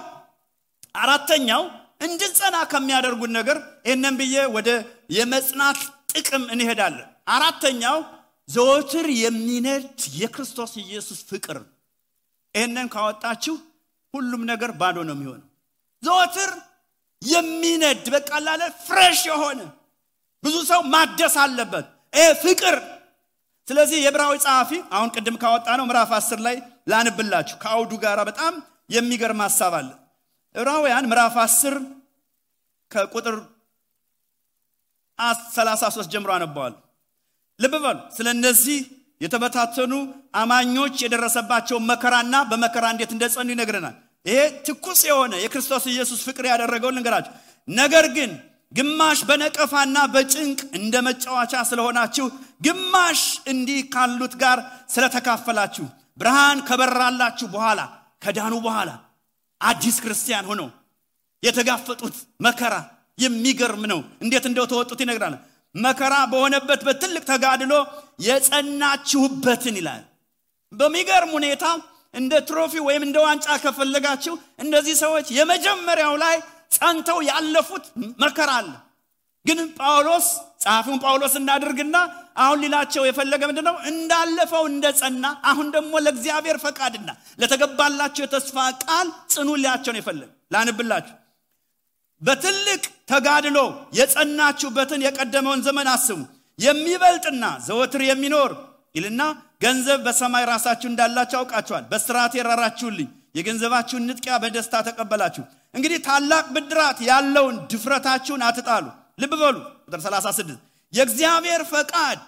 [SPEAKER 1] አራተኛው እንድንጸና ከሚያደርጉን ነገር እነም ብዬ ወደ የመጽናት ጥቅም እንሄዳለን አራተኛው ዘወትር የሚነድ የክርስቶስ ኢየሱስ ፍቅር እነን ካወጣችሁ ሁሉም ነገር ባዶ ነው የሚሆነው ዘወትር የሚነድ በቃላለ ፍሬሽ የሆነ ብዙ ሰው ማደስ አለበት ፍቅር ስለዚህ የዕብራዊ ጸሐፊ አሁን ቅድም ካወጣ ነው ምዕራፍ 10 ላይ ላንብላችሁ ከአውዱ ጋር በጣም የሚገርም ሐሳብ አለ ዕብራውያን ምዕራፍ 10 ከቁጥር 33 ጀምሮ አነባዋል ልብ በሉ ስለነዚህ የተበታተኑ አማኞች የደረሰባቸው መከራና በመከራ እንዴት እንደጸኑ ይነግረናል ይሄ ትኩስ የሆነ የክርስቶስ ኢየሱስ ፍቅር ያደረገው ልንገራችሁ ነገር ግን ግማሽ በነቀፋና በጭንቅ እንደመጫወቻ ስለሆናችሁ ግማሽ እንዲህ ካሉት ጋር ስለተካፈላችሁ ብርሃን ከበራላችሁ በኋላ ከዳኑ በኋላ አዲስ ክርስቲያን ሆነው የተጋፈጡት መከራ የሚገርም ነው እንዴት እንደው ተወጡት ይነግራል መከራ በሆነበት በትልቅ ተጋድሎ የጸናችሁበትን ይላል በሚገርም ሁኔታ እንደ ትሮፊ ወይም እንደ ዋንጫ ከፈለጋችሁ እንደዚህ ሰዎች የመጀመሪያው ላይ ጸንተው ያለፉት መከራ አለ ግን ጳውሎስ ጻፊውን ጳውሎስ እንዳደርግና አሁን ሊላቸው የፈለገ ምንድነው እንዳለፈው እንደጸና አሁን ደግሞ ለእግዚአብሔር ፈቃድና ለተገባላችሁ የተስፋ ቃል ጽኑ ሊያቸው ነው የፈለገ ላንብላችሁ በትልቅ ተጋድሎ የጸናችሁበትን የቀደመውን ዘመን አስቡ የሚበልጥና ዘወትር የሚኖር ይልና ገንዘብ በሰማይ ራሳችሁ እንዳላችሁ አውቃችኋል በስራቴ የራራችሁልኝ የገንዘባችሁን ንጥቂያ በደስታ ተቀበላችሁ እንግዲህ ታላቅ ብድራት ያለውን ድፍረታችሁን አትጣሉ ልብ በሉ ቁጥር 36 የእግዚአብሔር ፈቃድ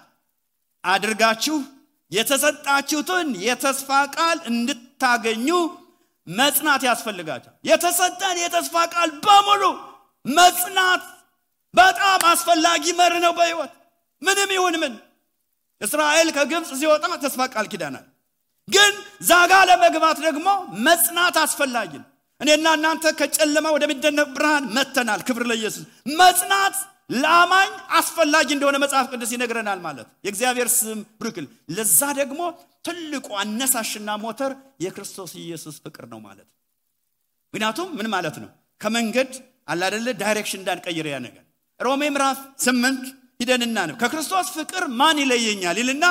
[SPEAKER 1] አድርጋችሁ የተሰጣችሁትን የተስፋ ቃል እንድታገኙ መጽናት ያስፈልጋችኋል የተሰጠን የተስፋ ቃል በሙሉ መጽናት በጣም አስፈላጊ መር ነው በህይወት ምንም ይሁን ምን እስራኤል ከግብጽ ሲወጣ ተስፋ ቃል ኪዳናል ግን ዛጋ ለመግባት ደግሞ መጽናት አስፈላጊ ነው እኔና እናንተ ከጨለማ ወደ ሚደነቅ ብርሃን መተናል ክብር ለኢየሱስ መጽናት ለአማኝ አስፈላጊ እንደሆነ መጽሐፍ ቅዱስ ይነግረናል ማለት የእግዚአብሔር ስም ብሩክ ለዛ ደግሞ ትልቁ አነሳሽና ሞተር የክርስቶስ ኢየሱስ ፍቅር ነው ማለት ምክንያቱም ምን ማለት ነው ከመንገድ አለ አይደለ ዳይሬክሽን እንዳንቀይር ያ ነገር ሮሜ ምዕራፍ 8 ሂደንና ነው ከክርስቶስ ፍቅር ማን ይለየኛል ይልና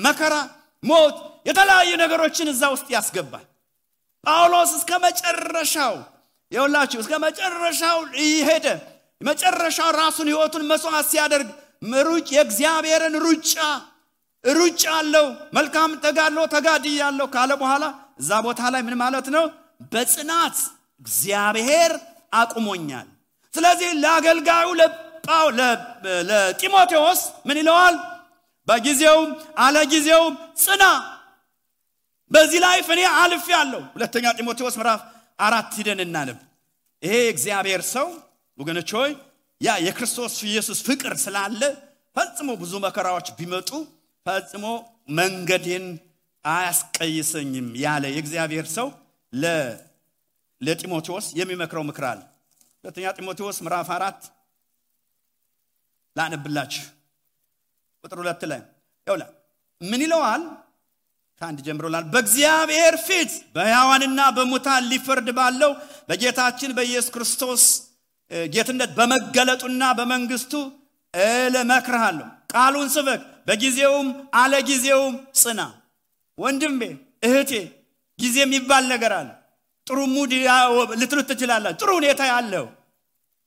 [SPEAKER 1] መከራ ሞት የተለያዩ ነገሮችን እዛ ውስጥ ያስገባል ጳውሎስ እስከ መጨረሻው ይወላችሁ እስከ መጨረሻው ይሄደ መጨረሻው ራሱን ህይወቱን መስዋዕት ሲያደርግ ምሩጭ የእግዚአብሔርን ሩጫ አለው መልካም ተጋድሎ ተጋድያለሁ ካለ በኋላ እዛ ቦታ ላይ ምን ማለት ነው በጽናት እግዚአብሔር አቁሞኛል ስለዚህ ለአገልጋዩ ለጢሞቴዎስ ምን ይለዋል በጊዜው አለጊዜው ጽና በዚህ ላይ ፈኔ አልፍ ያለው ሁለተኛ ጢሞቴዎስ ምዕራፍ 4 ሂደን እናነብ ይሄ እግዚአብሔር ሰው ወገኖች ሆይ ያ የክርስቶስ ኢየሱስ ፍቅር ስላለ ፈጽሞ ብዙ መከራዎች ቢመጡ ፈጽሞ መንገዴን አያስቀይሰኝም ያለ የእግዚአብሔር ሰው ለጢሞቴዎስ የሚመክረው ምክር አለ ሁለተኛ ጢሞቴዎስ ምዕራፍ 4 ላነብላችሁ ቁጥር 2 ላይ ይውላ ምን ይለዋል ታንድ ጀምሮላል በእግዚአብሔር ፊት በሕያዋንና በሙታን ሊፈርድ ባለው በጌታችን በኢየሱስ ክርስቶስ ጌትነት በመገለጡና በመንግስቱ ለመክረሃለሁ ቃሉን ስበክ በጊዜውም አለጊዜውም ጽና ወንድሜ እህቴ ጊዜ የሚባል ነገር አለ ጥሩ ሙድ ልትሉት ትችላላችሁ ጥሩ ሁኔታ ያለው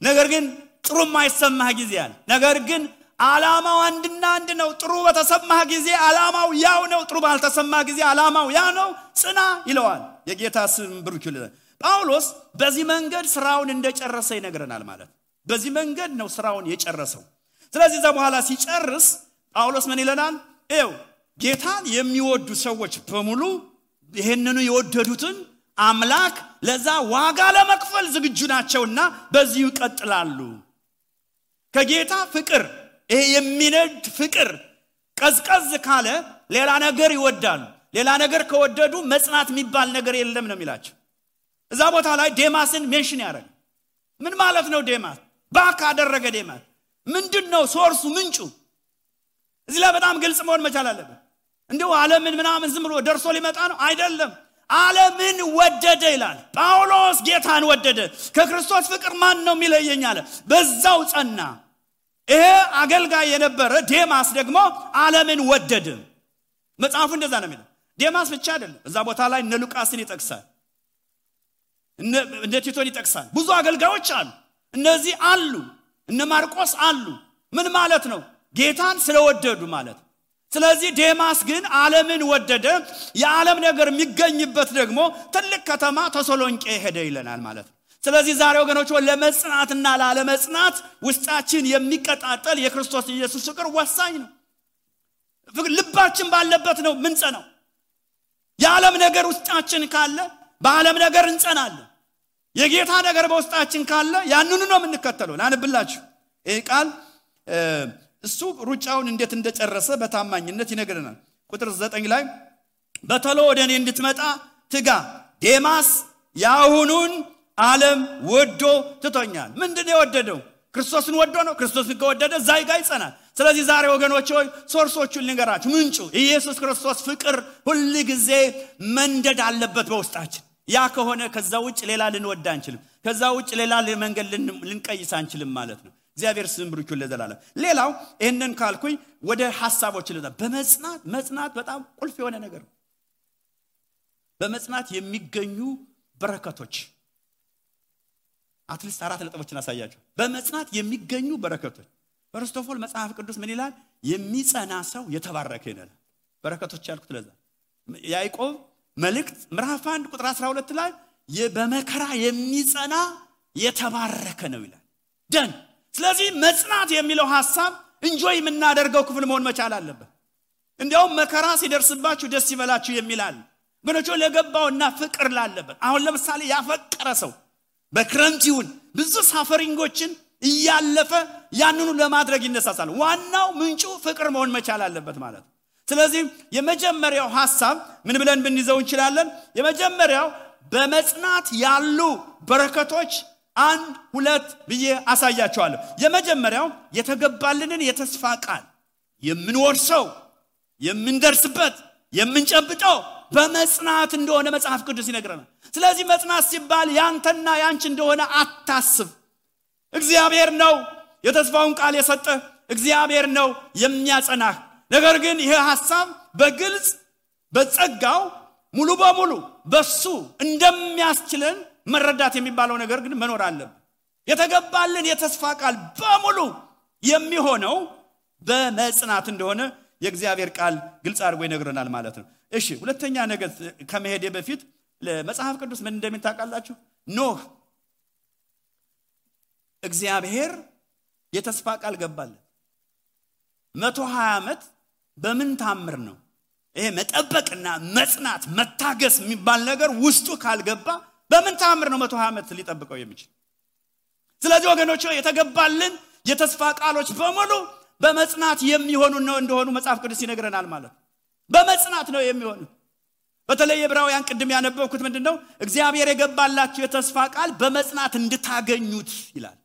[SPEAKER 1] ነገር ግን ጥሩ ማይሰማህ ጊዜ አለ ነገር ግን ዓላማው አንድና አንድ ነው ጥሩ በተሰማህ ጊዜ ዓላማው ያው ነው ጥሩ ባልተሰማህ ጊዜ ዓላማው ያ ነው ጽና ይለዋል የጌታ ስም ብሩክ ይሁን ጳውሎስ በዚህ መንገድ ስራውን እንደጨረሰ ይነግረናል ማለት በዚህ መንገድ ነው ስራውን የጨረሰው ስለዚህ እዛ በኋላ ሲጨርስ ጳውሎስ ምን ይለናል ኤው ጌታን የሚወዱ ሰዎች በሙሉ ይሄንኑ የወደዱትን አምላክ ለዛ ዋጋ ለመክፈል ዝግጁ ናቸውና በዚህ ይቀጥላሉ ከጌታ ፍቅር ይሄ የሚነድ ፍቅር ቀዝቀዝ ካለ ሌላ ነገር ይወዳሉ ሌላ ነገር ከወደዱ መጽናት የሚባል ነገር የለም ነው የሚላቸው እዛ ቦታ ላይ ዴማስን ሜንሽን ያደርጋል ምን ማለት ነው ዴማስ? ባክ አደረገ ዴማስ ምንድነው ሶርሱ ምንጩ? እዚህ ላይ በጣም ግልጽ መሆን መቻል አለበት። እንደው ዓለምን ምናምን ዝም ብሎ ደርሶ ሊመጣ ነው አይደለም። ዓለምን ወደደ ይላል ጳውሎስ። ጌታን ወደደ። ከክርስቶስ ፍቅር ማን ነው የሚለየኝ አለ። በዛው ጸና። ይሄ አገልጋይ የነበረ ዴማስ ደግሞ ዓለምን ወደደ። መጽሐፉ እንደዛ ነው የሚለው። ዴማስ ብቻ አይደለም። እዛ ቦታ ላይ እነ ሉቃስን ይጠቅሳል፣ እነ ቲቶን ይጠቅሳል። ብዙ አገልጋዮች አሉ። እነዚህ አሉ፣ እነ ማርቆስ አሉ። ምን ማለት ነው? ጌታን ስለወደዱ ማለት። ስለዚህ ዴማስ ግን ዓለምን ወደደ። የዓለም ነገር የሚገኝበት ደግሞ ትልቅ ከተማ ተሰሎንቄ ሄደ ይለናል ማለት ነው። ስለዚህ ዛሬ ወገኖች ለመጽናትና ላለመጽናት ውስጣችን የሚቀጣጠል የክርስቶስ ኢየሱስ ፍቅር ወሳኝ ነው። ልባችን ባለበት ነው ምንጸናው። የዓለም ነገር ውስጣችን ካለ በዓለም ነገር እንጸናለን። የጌታ ነገር በውስጣችን ካለ ያንኑ ነው የምንከተለው። ላንብላችሁ ይሄ ቃል እሱ ሩጫውን እንዴት እንደጨረሰ በታማኝነት ይነግረናል። ቁጥር 9 ላይ በተሎ ወደኔ እንድትመጣ ትጋ፣ ዴማስ ያሁኑን ዓለም ወዶ ትቶኛል። ምንድነው የወደደው? ክርስቶስን ወዶ ነው። ክርስቶስን ከወደደ ዛይ ጋር ይጸናል። ስለዚህ ዛሬ ወገኖች ሆይ ሶርሶቹን ልንገራችሁ። ምንጩ ኢየሱስ ክርስቶስ ፍቅር ሁሉ ጊዜ መንደድ አለበት በውስጣችን። ያ ከሆነ ከዛ ውጭ ሌላ ልንወድ አንችልም። ከዛ ውጭ ሌላ መንገድ ልንቀይስ አንችልም ማለት ነው። እግዚአብሔር ስም ብሩክ ይሁን ለዘላለም። ሌላው ይሄንን ካልኩኝ ወደ ሐሳቦች ልዳ መጽናት በጣም ቁልፍ የሆነ ነገር ነው። በመጽናት የሚገኙ በረከቶች አትሊስት 4 ነጥቦችን አሳያችሁ። በመጽናት የሚገኙ በረከቶች ፈርስት ኦፍ ኦል መጽሐፍ ቅዱስ ምን ይላል? የሚጸና ሰው የተባረከ ይላል። በረከቶች ያልኩት ለዛ ያዕቆብ መልእክት ምዕራፍ 1 ቁጥር 12 ላይ በመከራ የሚጸና የተባረከ ነው ይላል። ደን ስለዚህ መጽናት የሚለው ሐሳብ እንጆይ የምናደርገው ክፍል መሆን መቻል አለበት። እንዲያውም መከራ ሲደርስባችሁ ደስ ይበላችሁ የሚላል ግኖቹ ለገባውና ፍቅር ላለበት። አሁን ለምሳሌ ያፈቀረ ሰው በክረምት ይሁን ብዙ ሳፈሪንጎችን እያለፈ ያንኑ ለማድረግ ይነሳሳል። ዋናው ምንጩ ፍቅር መሆን መቻል አለበት ማለት ነው። ስለዚህ የመጀመሪያው ሐሳብ ምን ብለን ብንይዘው እንችላለን? የመጀመሪያው በመጽናት ያሉ በረከቶች 1 2 ብዬ አሳያቸዋለሁ። የመጀመሪያው የተገባልንን የተስፋ ቃል የምንወርሰው የምንደርስበት የምንጨብጠው በመጽናት እንደሆነ መጽሐፍ ቅዱስ ይነግረናል። ስለዚህ መጽናት ሲባል ያንተና ያንቺ እንደሆነ አታስብ። እግዚአብሔር ነው የተስፋውን ቃል የሰጠ፣ እግዚአብሔር ነው የሚያጸናህ። ነገር ግን ይሄ ሐሳብ በግልጽ በጸጋው ሙሉ በሙሉ በሱ እንደሚያስችለን መረዳት የሚባለው ነገር ግን መኖር አለበት። የተገባልን የተስፋ ቃል በሙሉ የሚሆነው በመጽናት እንደሆነ የእግዚአብሔር ቃል ግልጽ አድርጎ ይነግረናል ማለት ነው። እሺ ሁለተኛ ነገር ከመሄዴ በፊት ለመጽሐፍ ቅዱስ ምን እንደሚታቃላችሁ ኖህ እግዚአብሔር የተስፋ ቃል ገባለት 120 ዓመት በምን ታምር ነው? ይሄ መጠበቅና መጽናት መታገስ የሚባል ነገር ውስጡ ካልገባ በምን ታምር ነው 120 ዓመት ሊጠብቀው የሚችል? ስለዚህ ወገኖች የተገባልን የተስፋ ቃሎች በሙሉ በመጽናት የሚሆኑ ነው እንደሆኑ መጽሐፍ ቅዱስ ይነግረናል ማለት ነው። በመጽናት ነው የሚሆኑ። በተለይ ዕብራውያን ቅድም ያነበብኩት ምንድነው? እግዚአብሔር የገባላችሁ የተስፋ ቃል በመጽናት እንድታገኙት ይላል።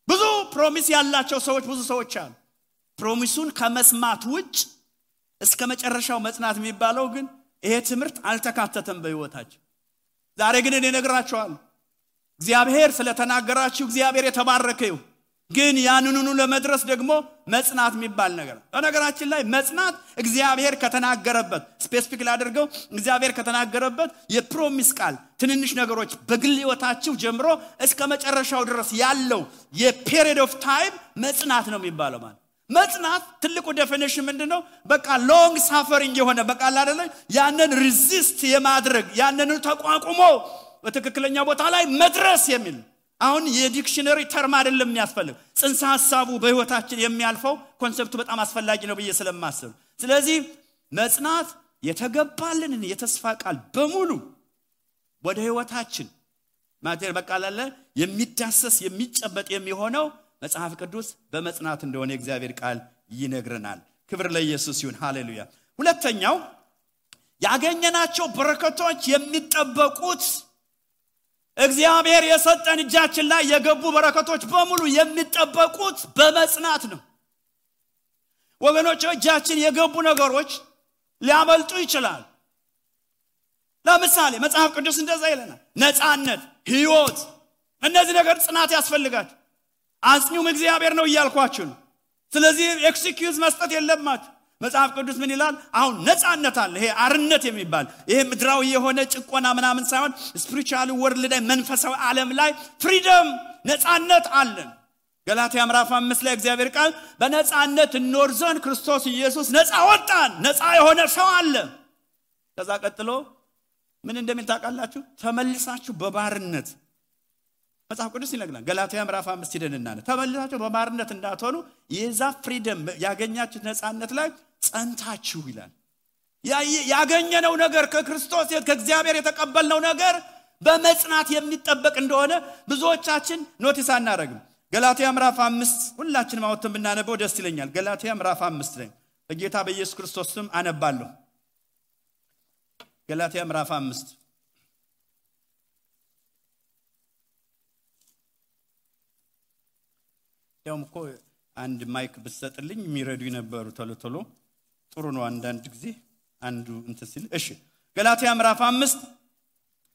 [SPEAKER 1] ብዙ ፕሮሚስ ያላቸው ሰዎች ብዙ ሰዎች አሉ። ፕሮሚሱን ከመስማት ውጭ እስከ መጨረሻው መጽናት የሚባለው ግን ይሄ ትምህርት አልተካተተም በህይወታቸው። ዛሬ ግን እኔ ነግራችኋለሁ እግዚአብሔር ስለተናገራችሁ እግዚአብሔር የተባረከ ይሁን። ግን ያንኑኑ ለመድረስ ደግሞ መጽናት የሚባል ነገር በነገራችን ላይ መጽናት እግዚአብሔር ከተናገረበት ስፔሲፊክ ላድርገው እግዚአብሔር ከተናገረበት የፕሮሚስ ቃል ትንንሽ ነገሮች በግል ህይወታችሁ ጀምሮ እስከ መጨረሻው ድረስ ያለው የፔሪድ ኦፍ ታይም መጽናት ነው የሚባለው ማለት መጽናት ትልቁ ዴፊኒሽን ምንድነው? በቃ ሎንግ ሳፈሪንግ የሆነ በቃ አይደለ ያንን ሪዚስት የማድረግ ያንን ተቋቁሞ በትክክለኛ ቦታ ላይ መድረስ የሚል አሁን የዲክሽነሪ ተርም አይደለም የሚያስፈልግ ጽንሰ ሐሳቡ በህይወታችን የሚያልፈው ኮንሰፕቱ በጣም አስፈላጊ ነው ብዬ ስለማስብ ስለዚህ መጽናት የተገባልንን የተስፋ ቃል በሙሉ ወደ ህይወታችን ማቴር በቃላለ የሚዳሰስ የሚጨበጥ የሚሆነው መጽሐፍ ቅዱስ በመጽናት እንደሆነ እግዚአብሔር ቃል ይነግረናል። ክብር ለኢየሱስ ይሁን። ሃሌሉያ። ሁለተኛው ያገኘናቸው በረከቶች የሚጠበቁት እግዚአብሔር የሰጠን እጃችን ላይ የገቡ በረከቶች በሙሉ የሚጠበቁት በመጽናት ነው። ወገኖች እጃችን የገቡ ነገሮች ሊያመልጡ ይችላል። ለምሳሌ መጽሐፍ ቅዱስ እንደዛ ይለናል። ነፃነት፣ ሕይወት፣ እነዚህ ነገር ጽናት ያስፈልጋል። አጽኙም እግዚአብሔር ነው እያልኳችሁ ነው። ስለዚህ ኤክስኪዩዝ መስጠት የለባችሁ። መጽሐፍ ቅዱስ ምን ይላል? አሁን ነፃነት አለ። ይሄ አርነት የሚባል ይሄ ምድራዊ የሆነ ጭቆና ምናምን ሳይሆን ስፒሪቹዋል ወርልድ ላይ መንፈሳዊ ዓለም ላይ ፍሪደም ነፃነት አለን። ገላትያ ምዕራፍ 5 ላይ እግዚአብሔር ቃል በነፃነት እንኖር ዘንድ ክርስቶስ ኢየሱስ ነፃ ወጣን። ነፃ የሆነ ሰው አለ። ከዛ ቀጥሎ ምን እንደሚል ታውቃላችሁ? ተመልሳችሁ በባርነት መጽሐፍ ቅዱስ ይነግረናል። ገላትያ ምዕራፍ 5 ሄደንና ተመልሳችሁ በባርነት እንዳትሆኑ የዛ ፍሪደም ያገኛችሁት ነፃነት ላይ ጸንታችሁ ይላል። ያገኘነው ነገር ከክርስቶስ ከእግዚአብሔር የተቀበልነው ነገር በመጽናት የሚጠበቅ እንደሆነ ብዙዎቻችን ኖቲስ አናረግም። ገላትያ ምዕራፍ 5 ሁላችንም አውጥተን ብናነበው ደስ ይለኛል። ገላትያ ምዕራፍ 5 ላይ በጌታ በኢየሱስ ክርስቶስ ስም አነባለሁ። ገላትያ ምዕራፍ 5 ያውም እኮ አንድ ማይክ ብትሰጥልኝ የሚረዱ ይነበሩ ቶሎ ጥሩ ነው። አንዳንድ ጊዜ አንዱ እንተሲል እሺ። ገላትያ ምዕራፍ 5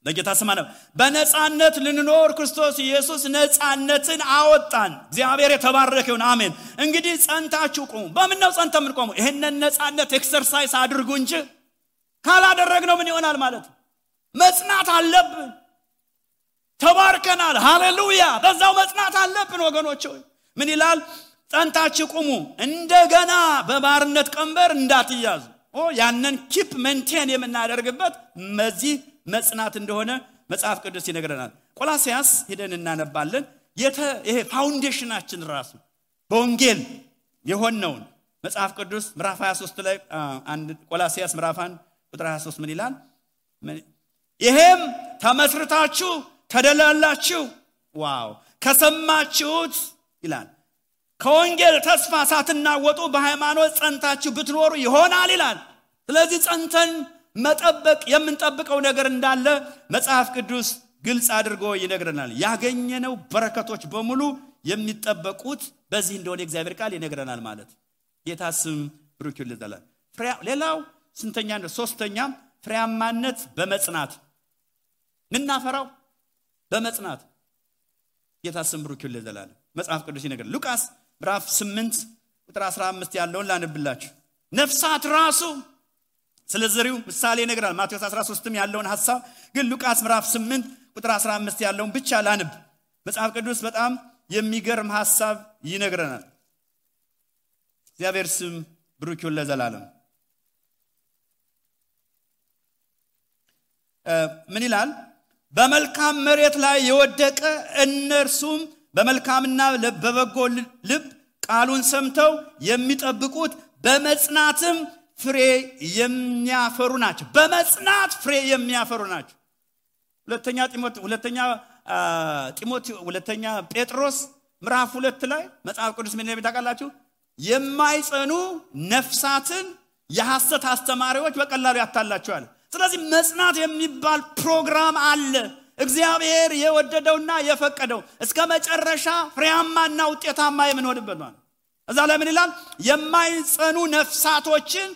[SPEAKER 1] በጌታ ስም አነብ። በነፃነት ልንኖር ክርስቶስ ኢየሱስ ነፃነትን አወጣን። እግዚአብሔር የተባረከ ይሁን። አሜን። እንግዲህ ጸንታችሁ ቆሙ። በምን ነው ጸንተን የምንቆመው? ይሄንን ነፃነት ኤክሰርሳይዝ አድርጉ እንጂ ካላደረግነው ምን ይሆናል ማለት ነው? መጽናት አለብን። ተባርከናል። ሃሌሉያ። በዛው መጽናት አለብን ወገኖች ሆይ። ምን ይላል? ጸንታችሁ ቆሙ፣ እንደገና በባርነት ቀንበር እንዳትያዙ። ያንን ኪፕ ሜንቴን የምናደርግበት መዚህ መጽናት እንደሆነ መጽሐፍ ቅዱስ ይነግረናል። ቆላስያስ ሄደን እናነባለን። ይሄ ፋውንዴሽናችን ራሱ በወንጌል የሆነውን መጽሐፍ ቅዱስ ምዕራፍ 23 ላይ ቆላስያስ ምዕራፍ 1 ቁጥር 23 ምን ይላል? ይሄም ተመስርታችሁ ተደላላችሁ። ዋው! ከሰማችሁት ይላል ከወንጌል ተስፋ ሳትናወጡ በሃይማኖት ጸንታችሁ ብትኖሩ ይሆናል ይላል። ስለዚህ ጸንተን መጠበቅ የምንጠብቀው ነገር እንዳለ መጽሐፍ ቅዱስ ግልጽ አድርጎ ይነግረናል። ያገኘነው በረከቶች በሙሉ የሚጠበቁት በዚህ እንደሆነ እግዚአብሔር ቃል ይነግረናል ማለት። ጌታ ስም ብሩክ ይሁን። ሌላው ስንተኛ ነው? ሶስተኛ ፍሬያማነት በመጽናት ምናፈራው በመጽናት። ጌታ ስም ብሩክ ይሁን። መጽሐፍ ቅዱስ ይነግረናል። ሉቃስ ምዕራፍ 8 ቁጥር 15 ያለውን ላንብላችሁ። ነፍሳት ራሱ ስለዘሪው ምሳሌ ይነግራል። ማቴዎስ 13ም ያለውን ሐሳብ ግን ሉቃስ ምዕራፍ 8 ቁጥር 15 ያለውን ብቻ ላንብ። መጽሐፍ ቅዱስ በጣም የሚገርም ሐሳብ ይነግረናል። እግዚአብሔር ስም ብሩክ ይሁን ለዘላለም። ምን ይላል? በመልካም መሬት ላይ የወደቀ እነርሱም በመልካምና በበጎ ልብ ቃሉን ሰምተው የሚጠብቁት በመጽናትም ፍሬ የሚያፈሩ ናቸው። በመጽናት ፍሬ የሚያፈሩ ናቸው። ሁለተኛ ጴጥሮስ ምዕራፍ 2 ላይ መጽሐፍ ቅዱስ ምን እንደሚል ታውቃላችሁ? የማይጸኑ ነፍሳትን የሐሰት አስተማሪዎች በቀላሉ ያታላቸዋል። ስለዚህ መጽናት የሚባል ፕሮግራም አለ። እግዚአብሔር የወደደውና የፈቀደው እስከ መጨረሻ ፍሬያማና ውጤታማ የምንሆንበት ነው። እዛ ላይ ምን ይላል? የማይጸኑ ነፍሳቶችን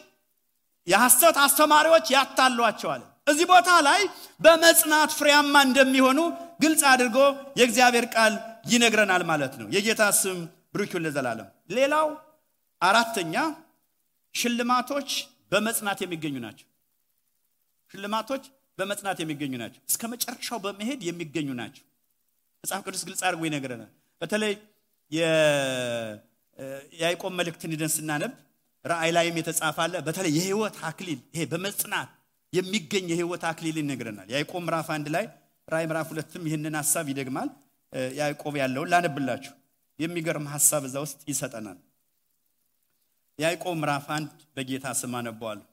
[SPEAKER 1] የሐሰት አስተማሪዎች ያታሏቸዋል። እዚህ ቦታ ላይ በመጽናት ፍሬያማ እንደሚሆኑ ግልጽ አድርጎ የእግዚአብሔር ቃል ይነግረናል ማለት ነው። የጌታ ስም ብሩክ ይሁን ለዘላለም። ሌላው አራተኛ ሽልማቶች በመጽናት የሚገኙ ናቸው። ሽልማቶች በመጽናት የሚገኙ ናቸው። እስከ መጨረሻው በመሄድ የሚገኙ ናቸው። መጽሐፍ ቅዱስ ግልጽ አድርጎ ይነግረናል። በተለይ የያዕቆብ መልእክትን ሄደን ስናነብ ራእይ ላይም የተጻፈ አለ። በተለይ የሕይወት አክሊል ይሄ በመጽናት የሚገኝ የሕይወት አክሊል ይነግረናል። ያዕቆብ ምዕራፍ 1 ላይ ራእይ ምዕራፍ 2ም ይህንን ሐሳብ ይደግማል። ያዕቆብ ያለውን ላነብላችሁ። የሚገርም ሐሳብ እዛ ውስጥ ይሰጠናል። ያዕቆብ ምዕራፍ 1 በጌታ ስም አነበዋለሁ።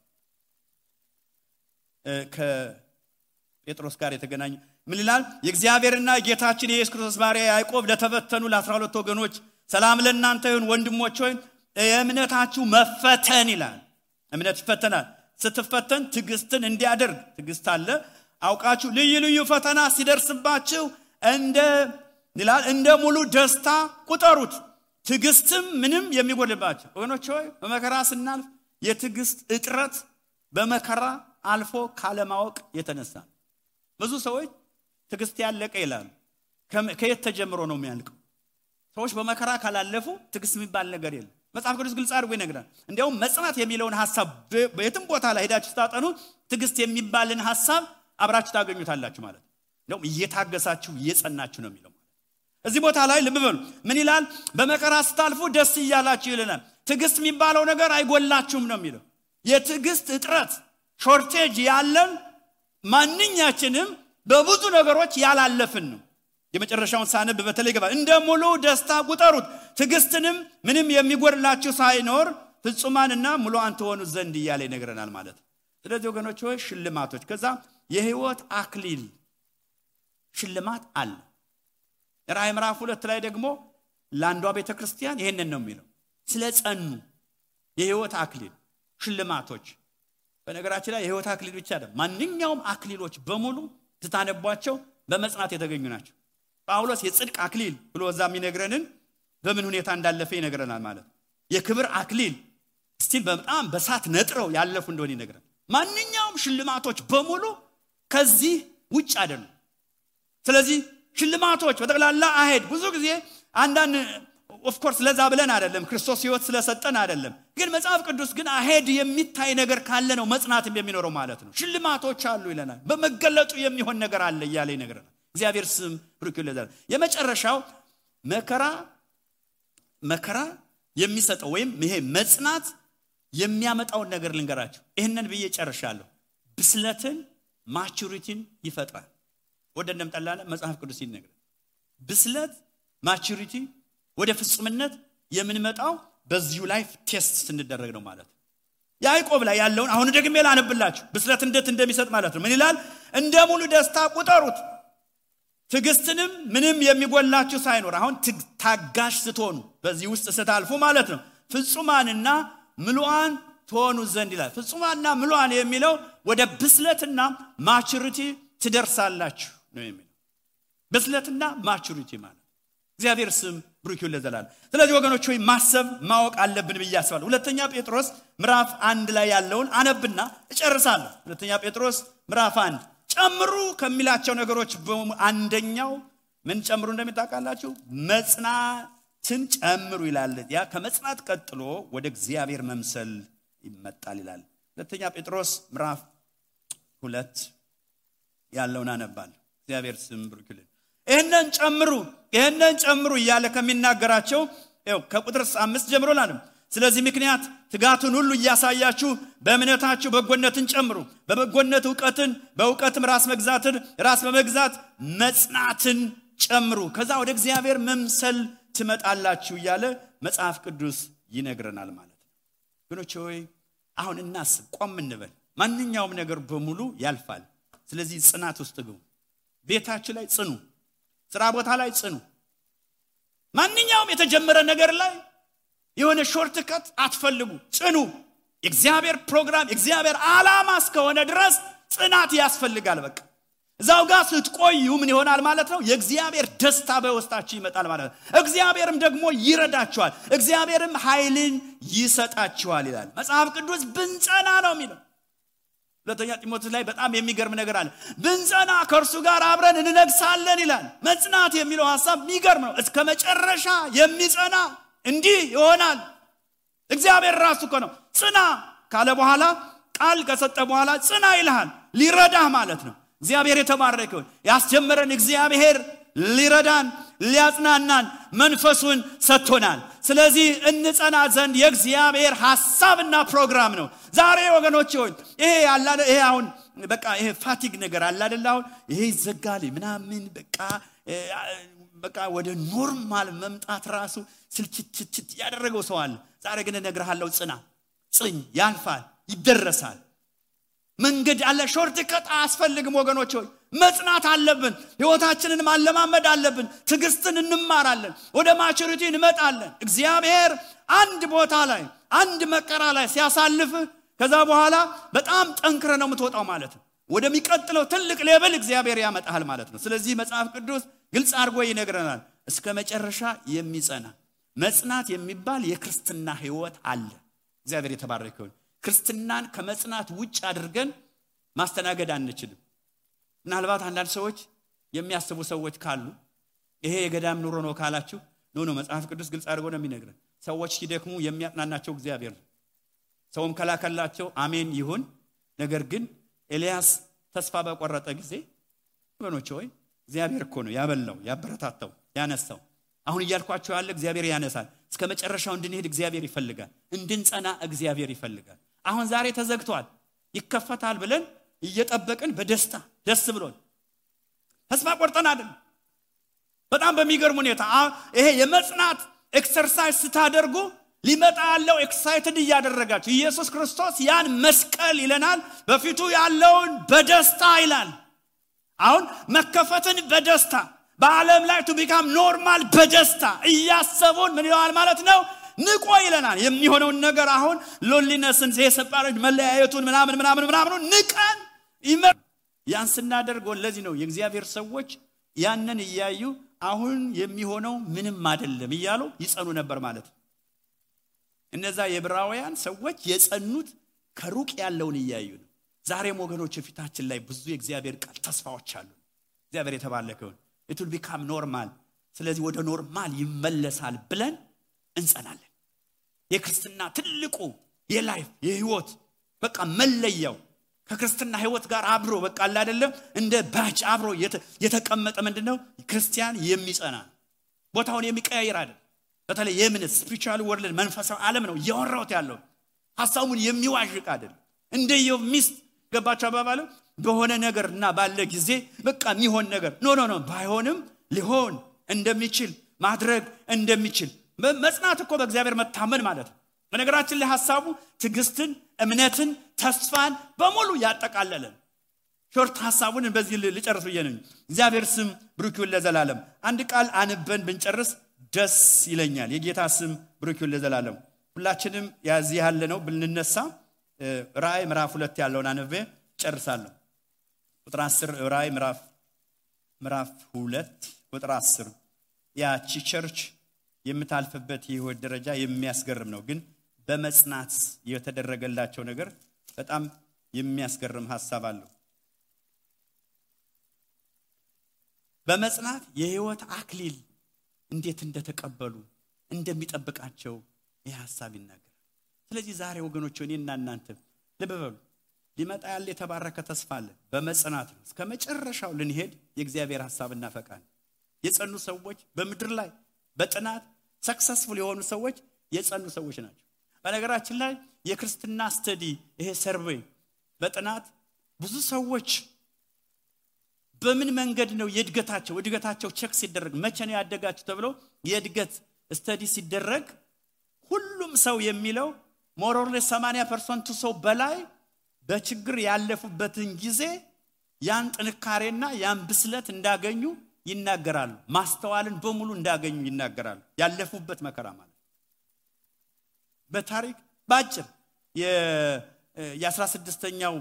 [SPEAKER 1] ከጴጥሮስ ጋር የተገናኘ ምን ይላል? የእግዚአብሔርና ጌታችን የኢየሱስ ክርስቶስ ባሪያ ያዕቆብ ለተበተኑ ለ12 ወገኖች ሰላም ለእናንተ ይሁን። ወንድሞች ሆይ የእምነታችሁ መፈተን ይላል። እምነት ይፈተናል። ስትፈተን ትዕግስትን እንዲያደርግ ትዕግስት አለ። አውቃችሁ ልዩ ፈተና ሲደርስባችሁ እንደ ሙሉ ደስታ ቁጠሩት ትግስትም ምንም የሚጎልባችሁ ወገኖች ሆይ በመከራ ስናልፍ የትግስት እጥረት በመከራ አልፎ ካለማወቅ የተነሳ ብዙ ሰዎች ትግስት ያለቀ ይላሉ ከየት ተጀምሮ ነው የሚያልቀው ሰዎች በመከራ ካላለፉ ትግስት የሚባል ነገር የለም መጽሐፍ ቅዱስ ግልጽ አድርጎ ይነግራል እንዲያውም መጽናት የሚለውን ሐሳብ በየትም ቦታ ላይ ሄዳችሁ ታጠኑ ትግስት የሚባልን ሐሳብ አብራችሁ ታገኙታላችሁ ማለት ነው እየታገሳችሁ እየጸናችሁ ነው የሚለው እዚህ ቦታ ላይ ልብ በሉ ምን ይላል በመከራ ስታልፉ ደስ ይያላችሁ ይለናል ትግስት የሚባለው ነገር አይጎላችሁም ነው የሚለው የትግስት እጥረት ሾርቴጅ ያለን ማንኛችንም በብዙ ነገሮች ያላለፍን ነው የመጨረሻውን ሳነብ በተለይ ገባ እንደ ሙሉ ደስታ ቁጠሩት ትግስትንም ምንም የሚጎድላችሁ ሳይኖር ፍጹማንና ሙሉአን ትሆኑ ዘንድ ይያለ ይነግረናል ማለት ስለዚህ ወገኖች ሆይ ሽልማቶች ከዛ የህይወት አክሊል ሽልማት አለ ራዕይ ምዕራፍ 2 ላይ ደግሞ ለአንዷ ቤተክርስቲያን ይሄንን ነው የሚለው ስለጸኑ የህይወት አክሊል ሽልማቶች በነገራችን ላይ የህይወት አክሊል ብቻ አይደለም ማንኛውም አክሊሎች በሙሉ ተታነቧቸው በመጽናት የተገኙ ናቸው ጳውሎስ የጽድቅ አክሊል ብሎ እዛም ይነግረንን በምን ሁኔታ እንዳለፈ ይነግረናል ማለት የክብር አክሊል ስቲል በጣም በሳት ነጥረው ያለፉ እንደሆነ ይነግረናል ማንኛውም ሽልማቶች በሙሉ ከዚህ ውጭ አይደሉም ስለዚህ ሽልማቶች በተቀላላ አሄድ ብዙ ጊዜ አንዳንድ ኦፍ ኮርስ ለዛ ብለን አይደለም ክርስቶስ ህይወት ስለሰጠን አይደለም ግን መጽሐፍ ቅዱስ ግን አሄድ የሚታይ ነገር ካለ ነው መጽናትም የሚኖረው ማለት ነው ሽልማቶች አሉ ይለናል በመገለጡ የሚሆን ነገር አለ ይያለ ይነግረናል እግዚአብሔር ስም ብሩክ ይሁን የመጨረሻው መከራ የሚሰጠው ወይም ይሄ መጽናት የሚያመጣው ነገር ልንገራችሁ ይሄንን ብዬ ጨርሻለሁ ብስለትን ማቹሪቲን ይፈጥራል ወደንም ጠላለ መጽሐፍ ቅዱስ ይነግረናል ብስለት ማቹሪቲ ወደ ፍጹምነት የምንመጣው በዚሁ ላይፍ ቴስት ስንደረግ ነው ማለት ያዕቆብ ላይ ያለውን አሁን ደግሜ ላነብላችሁ ብስለት እንዴት እንደሚሰጥ ማለት ነው ምን ይላል እንደ ሙሉ ደስታ ቁጠሩት ትግስትንም ምንም የሚጎላችሁ ሳይኖር አሁን ታጋሽ ስትሆኑ በዚህ ውስጥ ስታልፉ ማለት ነው ፍጹማንና ሙሉአን ትሆኑ ዘንድ ይላል ፍጹማንና ሙሉአን የሚለው ወደ ብስለትና ማቹሪቲ ትደርሳላችሁ ነው የሚለው ብስለትና ማቹሪቲ ማለት እግዚአብሔር ስም ብሩክ ይሁን ለዘላለም ስለዚህ ወገኖች ሆይ ማሰብ ማወቅ አለብን ብያስባለሁ ሁለተኛ ጴጥሮስ ምዕራፍ 1 ላይ ያለውን አነብና እጨርሳለሁ ሁለተኛ ጴጥሮስ ምዕራፍ 1 ጨምሩ ከሚላቸው ነገሮች አንደኛው ምን ጨምሩ እንደምታውቃላችሁ መጽናትን ጨምሩ ይላል ያ ከመጽናት ቀጥሎ ወደ እግዚአብሔር መምሰል ይመጣል ይላል ሁለተኛ ጴጥሮስ ምዕራፍ 2 ያለውን አነባለሁ እግዚአብሔር ስም ብሩክ ይሁን ይሄንን ጨምሩ ይያለ ከሚናገራቸው ከቁጥር 5 ጀምሮ ላንም ስለዚህ ምክንያት ትጋቱን ሁሉ ያሳያችሁ በእምነታችሁ በጎነትን ጨምሩ በበጎነት ዕውቀትን በዕውቀትም ራስ በመግዛት መጽናትን ጨምሩ ከዛ ወደ እግዚአብሔር መምሰል ትመጣላችሁ ይያለ መጽሐፍ ቅዱስ ይነግረናል ማለት ነው ወገኖች ሆይ አሁን እናስብ ቆም እንበል ማንኛውም ነገር በሙሉ ያልፋል ስለዚህ ጽናት ውስጥ ግቡ ቤታችሁ ላይ ጽኑ ስራ ቦታ ላይ ጽኑ ማንኛውም የተጀመረ ነገር ላይ የሆነ ሾርትከት አትፈልጉ ጽኑ እግዚአብሔር ፕሮግራም እግዚአብሔር ዓላማ እስከሆነ ድረስ ጽናት ያስፈልጋል በቃ እዛው ጋር ስትቆዩ ምን ይሆናል ማለት ነው የእግዚአብሔር ደስታ በውስጣችሁ ይመጣል ማለት ነው እግዚአብሔርም ደግሞ ይረዳችኋል እግዚአብሔርም ኃይልን ይሰጣችኋል ይላል መጽሐፍ ቅዱስ ብንጸና ነው የሚለው ሁለተኛ ጢሞቴዎስ ላይ በጣም የሚገርም ነገር አለ ብንጸና ከእርሱ ጋር አብረን እንነግሳለን ይላል መጽናት የሚለው ሐሳብ የሚገርም ነው እስከ መጨረሻ የሚጸና እንዲህ ይሆናል እግዚአብሔር ራሱ ነው ጽና ካለ በኋላ ቃል ከሰጠ በኋላ ጽና ይልሃል ሊረዳህ ማለት ነው እግዚአብሔር የተባረከ ይሁን ያስጀመረን እግዚአብሔር ሊረዳን ሊያጽናናን መንፈሱን ሰጥቶናል ስለዚህ እንጸና ዘንድ የእግዚአብሔር ሐሳብና ፕሮግራም ነው ዛሬ ወገኖች ሆይ ይሄ አሁን በቃ ይሄ ፋቲግ ነገር አለ አይደል አሁን ይሄ ይዘጋል ምናምን በቃ ወደ ኖርማል መምጣት ራሱ ስልችት ያደረገው ሰው አለ ዛሬ ግን እነግርሃለሁ ጽኝ ያልፋል ይደረሳል መንገድ አለ ሾርትከት አስፈልግም ወገኖች ሆይ መጽናት አለብን ህይወታችንን ማለማመድ አለብን ትግስትን እንማራለን ወደ ማቹሪቲ እንመጣለን እግዚአብሔር አንድ ቦታ ላይ አንድ መከራ ላይ ሲያሳልፍ ከዛ በኋላ በጣም ጠንክረ ነው የምትወጣው ማለት ነው ወደሚቀጥለው ትልቅ ሌቭል እግዚአብሔር ያመጣል ማለት ነው። ስለዚህ መጽሐፍ ቅዱስ ግልጽ አድርጎ ይነግረናል። እስከ መጨረሻ የሚጸና መጽናት የሚባል የክርስትና ህይወት አለ። እግዚአብሔር የተባረከ ይሁን። ክርስትናን ከመጽናት ውጭ አድርገን ማስተናገድ አንችልም። ምናልባት አንዳንድ ሰዎች የሚያስቡ ሰዎች ካሉ ይሄ የገዳም ኑሮ ነው ካላችሁ ኖ መጽሐፍ ቅዱስ ግልጽ አድርጎ ነው የሚነግረን። ሰዎች ሲደክሙ የሚያጽናናቸው እግዚአብሔር ነው። ሰውም ከላከላቸው አሜን ይሁን። ነገር ግን ኤልያስ ተስፋ በቆረጠ ጊዜ ወገኖች ሆይ እግዚአብሔር እኮ ነው ያበላው፣ ያበረታታው፣ ያነሳው። አሁን እያልኳችሁ ያለ እግዚአብሔር ያነሳል። እስከ መጨረሻው እንድንሄድ እግዚአብሔር ይፈልጋል። እንድንጸና እግዚአብሔር ይፈልጋል። አሁን ዛሬ ተዘግቷል ይከፈታል ብለን እየጠበቅን በደስታ ደስ ብሎን ተስፋ ቆርጠን አይደል። በጣም በሚገርም ሁኔታ ይሄ የመጽናት ኤክሰርሳይዝ ስታደርጉ ሊመጣ ያለው ኤክሳይትድ ያደረጋችሁ ኢየሱስ ክርስቶስ ያን መስቀል ይለናል በፊቱ ያለውን በደስታ ይላል። አሁን መከፈትን በደስታ በዓለም ላይ to become normal በደስታ እያሰቡን ምን ይላል ማለት ነው ንቆ ይለናል። የሚሆነውን ነገር አሁን ሎንሊነስን የሰፓሬት መለያየቱን ምናምን ንቀን ያን ስናደርግ ለዚህ ነው የእግዚአብሔር ሰዎች ያንን እያዩ አሁን የሚሆነው ምንም አይደለም እያሉ ይጸኑ ነበር ማለት ነው። እነዛ የዕብራውያን ሰዎች የጸኑት ከሩቅ ያለውን እያዩ ነው። ዛሬም ወገኖች ፊታችን ላይ ብዙ የእግዚአብሔር ቃል ተስፋዎች አሉ። እግዚአብሔር የተባረከው it will become normal። ስለዚህ ወደ ኖርማል ይመለሳል ብለን እንጸናለን። የክርስትና ትልቁ የላይፍ የህይወት በቃ መለያው ከክርስትና ህይወት ጋር አብሮ በቃ አይደለም እንደ ባጭ አብሮ የተቀመጠ ምንድነው ክርስቲያን የሚጸና ቦታውን የሚቀያየር አይደል። በተለይ የምንስ ስፒሪቹዋል ወርልድ መንፈሳዊ ዓለም ነው ያወራውት ያለው ሐሳቡን የሚዋዥቅ አይደል። እንደየው ሚስት ገባቸው አባባሉ በሆነ ነገርና ባለ ጊዜ በቃ የሚሆን ነገር ኖ ባይሆንም ሊሆን እንደሚችል ማድረግ እንደሚችል መጽናት እኮ በእግዚአብሔር መታመን ማለት ነው። በነገራችን ላይ ሐሳቡ ትግስትን እምነትን ተስፋን በሙሉ ያጠቃለለ ሾርት ሐሳቡን በዚህ ልጨርስ ብየነኝ። እግዚአብሔር ስም ብሩክ ይሁን ለዘላለም። አንድ ቃል አንበን ብንጨርስ ደስ ይለኛል። የጌታ ስም ብሩክ ይሁን ለዘላለም። ሁላችንም ያዚህ ያለ ነው ብንነሳ ራእይ ምዕራፍ 2 ያለውን አንበ ጨርሳለሁ። ቁጥር 10 ራእይ ምዕራፍ 2 ቁጥር 10 ያቺ ቸርች የምታልፈበት የህይወት ደረጃ የሚያስገርም ነው። ግን በመጽናት የተደረገላቸው ነገር በጣም የሚያስገርም ሐሳብ አለው። በመጽናት የህይወት አክሊል እንዴት እንደተቀበሉ እንደሚጠብቃቸው ይህ ሐሳብ ይናገራል። ስለዚህ ዛሬ ወገኖች እኔና እናንተ ልብ በሉ ሊመጣ ያለ የተባረከ ተስፋ አለ። በመጽናት ነው እስከ መጨረሻው ልንሄድ የእግዚአብሔር ሐሳብና ፈቃድ። የጸኑ ሰዎች በመድር ላይ በጥናት ሰክሰስፉል የሆኑ ሰዎች የጸኑ ሰዎች ናቸው። በነገራችን ላይ የክርስትና ስተዲ ይሄ ሰርቬይ በጥናት ብዙ ሰዎች በምን መንገድ ነው እድገታቸው ቼክ ሲደረግ መቼ ነው ያደጋችሁ ተብሎ የእድገት ስተዲ ሲደረግ ሁሉም ሰው የሚለው ሞር ኦር ሌስ 80% ሰው በላይ በችግር ያለፉበትን ጊዜ ያን ጥንካሬና ያን ብስለት እንዳገኙ ይናገራሉ። ማስተዋልን በሙሉ እንዳገኙ ይናገራሉ። ያለፉበት መከራ ማለት በታሪክ ባጭር የ16ኛው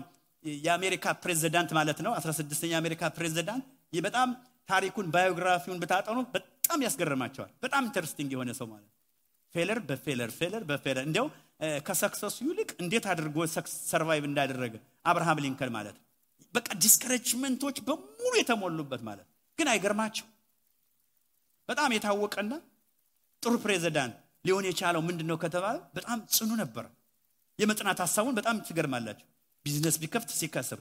[SPEAKER 1] የአሜሪካ ፕሬዝዳንት ማለት ነው 16ኛው የአሜሪካ ፕሬዝዳንት በጣም ታሪኩን ባዮግራፊውን በታጠኑ በጣም ያስገርማቸዋል። በጣም ኢንተረስቲንግ የሆነ ሰው ማለት ፌለር በፌለር እንደው ከሰክሰሱ ይልቅ እንዴት አድርጎ ሰርቫይቭ እንዳደረገ አብርሃም ሊንከን ማለት በቃ ዲስከሬጅመንቶች በሙሉ የተሞሉበት ማለት ግን አይገርማችሁ በጣም የታወቀና ጥሩ ፕሬዝዳንት ሊሆን የቻለው ምንድነው ከተባለ በጣም ጽኑ ነበር። የመጽናት ሐሳቡን በጣም ትገርማላችሁ። ቢዝነስ ቢከፍት ሲከስር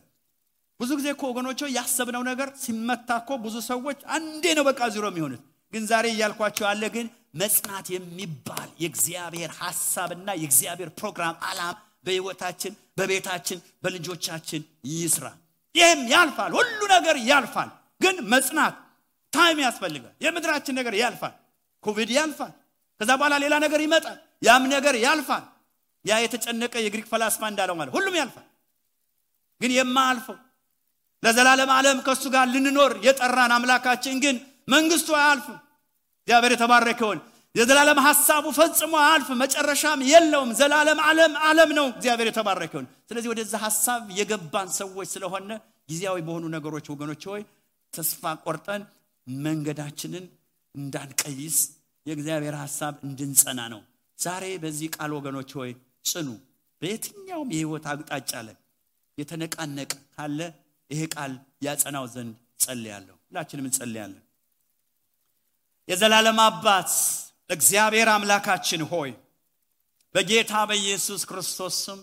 [SPEAKER 1] ብዙ ጊዜ እኮ ወገኖች ያሰብነው ነገር ሲመታኮ ብዙ ሰዎች አንዴ ነው በቃ ዜሮ የሚሆኑት። ግን ዛሬ ያልኳችሁ አለ ግን መጽናት የሚባል የእግዚአብሔር ሐሳብና የእግዚአብሔር ፕሮግራም ዓላማ በህይወታችን በቤታችን በልጆቻችን ይስራ። ይሄም ያልፋል ሁሉ ነገር ያልፋል። ግን መጽናት ታይም ያስፈልጋል። የምድራችን ነገር ያልፋል። ኮቪድ ያልፋል። ከዛ በኋላ ሌላ ነገር ይመጣል። ያም ነገር ያልፋል። ያ የተጨነቀ የግሪክ ፈላስፋ እንዳለው ማለት ሁሉም ያልፋል። ግን የማያልፈው ለዘላለም ዓለም ከሱ ጋር ልንኖር የጠራን አምላካችን ግን መንግስቱ አያልፍም። እግዚአብሔር የተባረከ ይሁን። የዘላለም ሐሳቡ ፈጽሞ አያልፍም። መጨረሻም የለውም። ዘላለም ዓለም ነው። እግዚአብሔር የተባረከ ይሁን። ስለዚህ ወደዛ ሐሳብ የገባን ሰዎች ስለሆነ ጊዜያዊ በሆኑ ነገሮች ወገኖች ሆይ ተስፋ ቆርጠን መንገዳችንን እንዳንቀይስ የእግዚአብሔር ሐሳብ እንድንጸና ነው። ዛሬ በዚህ ቃል ወገኖች ሆይ ጽኑ። በየትኛውም የህይወት አቅጣጫ ላይ የተነቃነቀ ካለ ይሄ ቃል ያጸናው ዘንድ ጸልያለሁ። ሁላችንም እንጸልያለን። የዘላለም አባት እግዚአብሔር አምላካችን ሆይ በጌታ በኢየሱስ ክርስቶስ ስም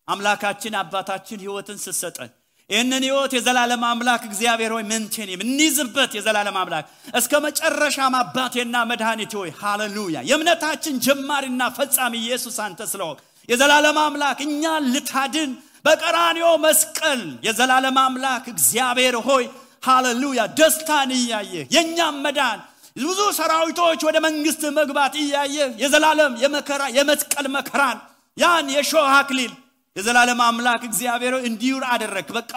[SPEAKER 1] አምላካችን አባታችን ህይወትን ሰጠን። ይህንን ህይወት የዘላለም አምላክ እግዚአብሔር ሆይ መንቴን እንይዝበት። የዘላለም አምላክ እስከ መጨረሻም አባቴና መድኃኒቴ ሆይ ሃሌሉያ የእምነታችን ጀማሪና ፈጻሚ ኢየሱስ አንተ ስለሆንክ የዘላለም አምላክ እኛን ልታድን በቀራንዮ መስቀል የዘላለም አምላክ እግዚአብሔር ሆይ ሃሌሉያ ደስታን እያየ የኛም መዳን ብዙ ሰራዊቶች ወደ መንግስት መግባት እያየ የዘላለም የመከራ የመስቀል መከራን ያን የሾህ አክሊል የዘላለም አምላክ እግዚአብሔር እንዲውር አደረክ። በቃ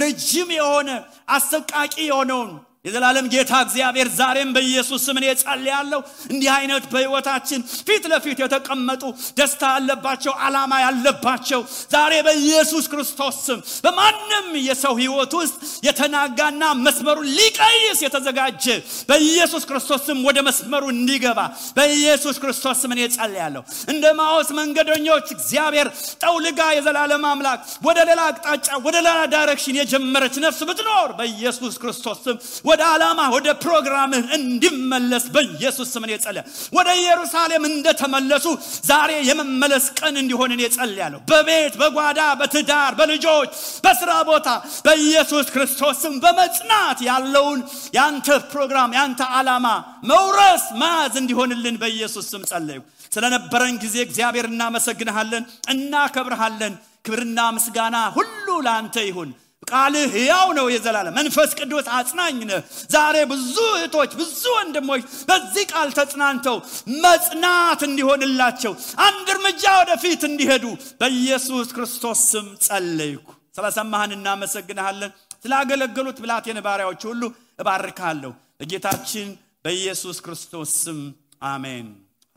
[SPEAKER 1] ረጅም የሆነ አሰቃቂ የሆነውን የዘላለም ጌታ እግዚአብሔር ዛሬም በኢየሱስ ስም እጸልያለሁ እንዲህ አይነት በህይወታችን ፊት ለፊት የተቀመጡ ደስታ ያለባቸው ዓላማ ያለባቸው ዛሬ በኢየሱስ ክርስቶስ ስም በማንም የሰው ህይወት ውስጥ የተናጋና መስመሩን ሊቀይስ የተዘጋጀ በኢየሱስ ክርስቶስ ስም ወደ መስመሩ እንዲገባ በኢየሱስ ክርስቶስ ስም እጸልያለሁ። እንደ ማውስ መንገደኞች እግዚአብሔር ጠውልጋ የዘላለም አምላክ ወደ ሌላ አቅጣጫ ወደ ሌላ ዳይሬክሽን የጀመረች ነፍስ ብትኖር በኢየሱስ ክርስቶስ ስም ወደ ዓላማ ወደ ፕሮግራም እንዲመለስ በኢየሱስ ስም እጸልያለሁ። ወደ ኢየሩሳሌም እንደተመለሱ ዛሬ የመመለስ ቀን እንዲሆን እጸልያለሁ። በቤት በጓዳ በትዳር በልጆች በስራ ቦታ በኢየሱስ ክርስቶስ ስም በመጽናት ያለውን ያንተ ፕሮግራም ያንተ ዓላማ መውረስ ማዝ እንዲሆንልን በኢየሱስ ስም ጸልዩ። ስለነበረን ጊዜ እግዚአብሔር እናመሰግንሃለን እናከብርሃለን። ክብርና ምስጋና ሁሉ ላንተ ይሁን። ቃልህ ሕያው ነው የዘላለም መንፈስ ቅዱስ አጽናኝ ነው። ዛሬ ብዙ እህቶች ብዙ ወንድሞች በዚህ ቃል ተጽናንተው መጽናት እንዲሆንላቸው አንድ እርምጃ ወደፊት እንዲሄዱ በኢየሱስ ክርስቶስ ስም ጸልይኩ። ስለሰማህን እናመሰግንሃለን። ስላገለገሉት ብላቴን ባሪያዎች ሁሉ እባርካለሁ በጌታችን በኢየሱስ ክርስቶስ ስም አሜን።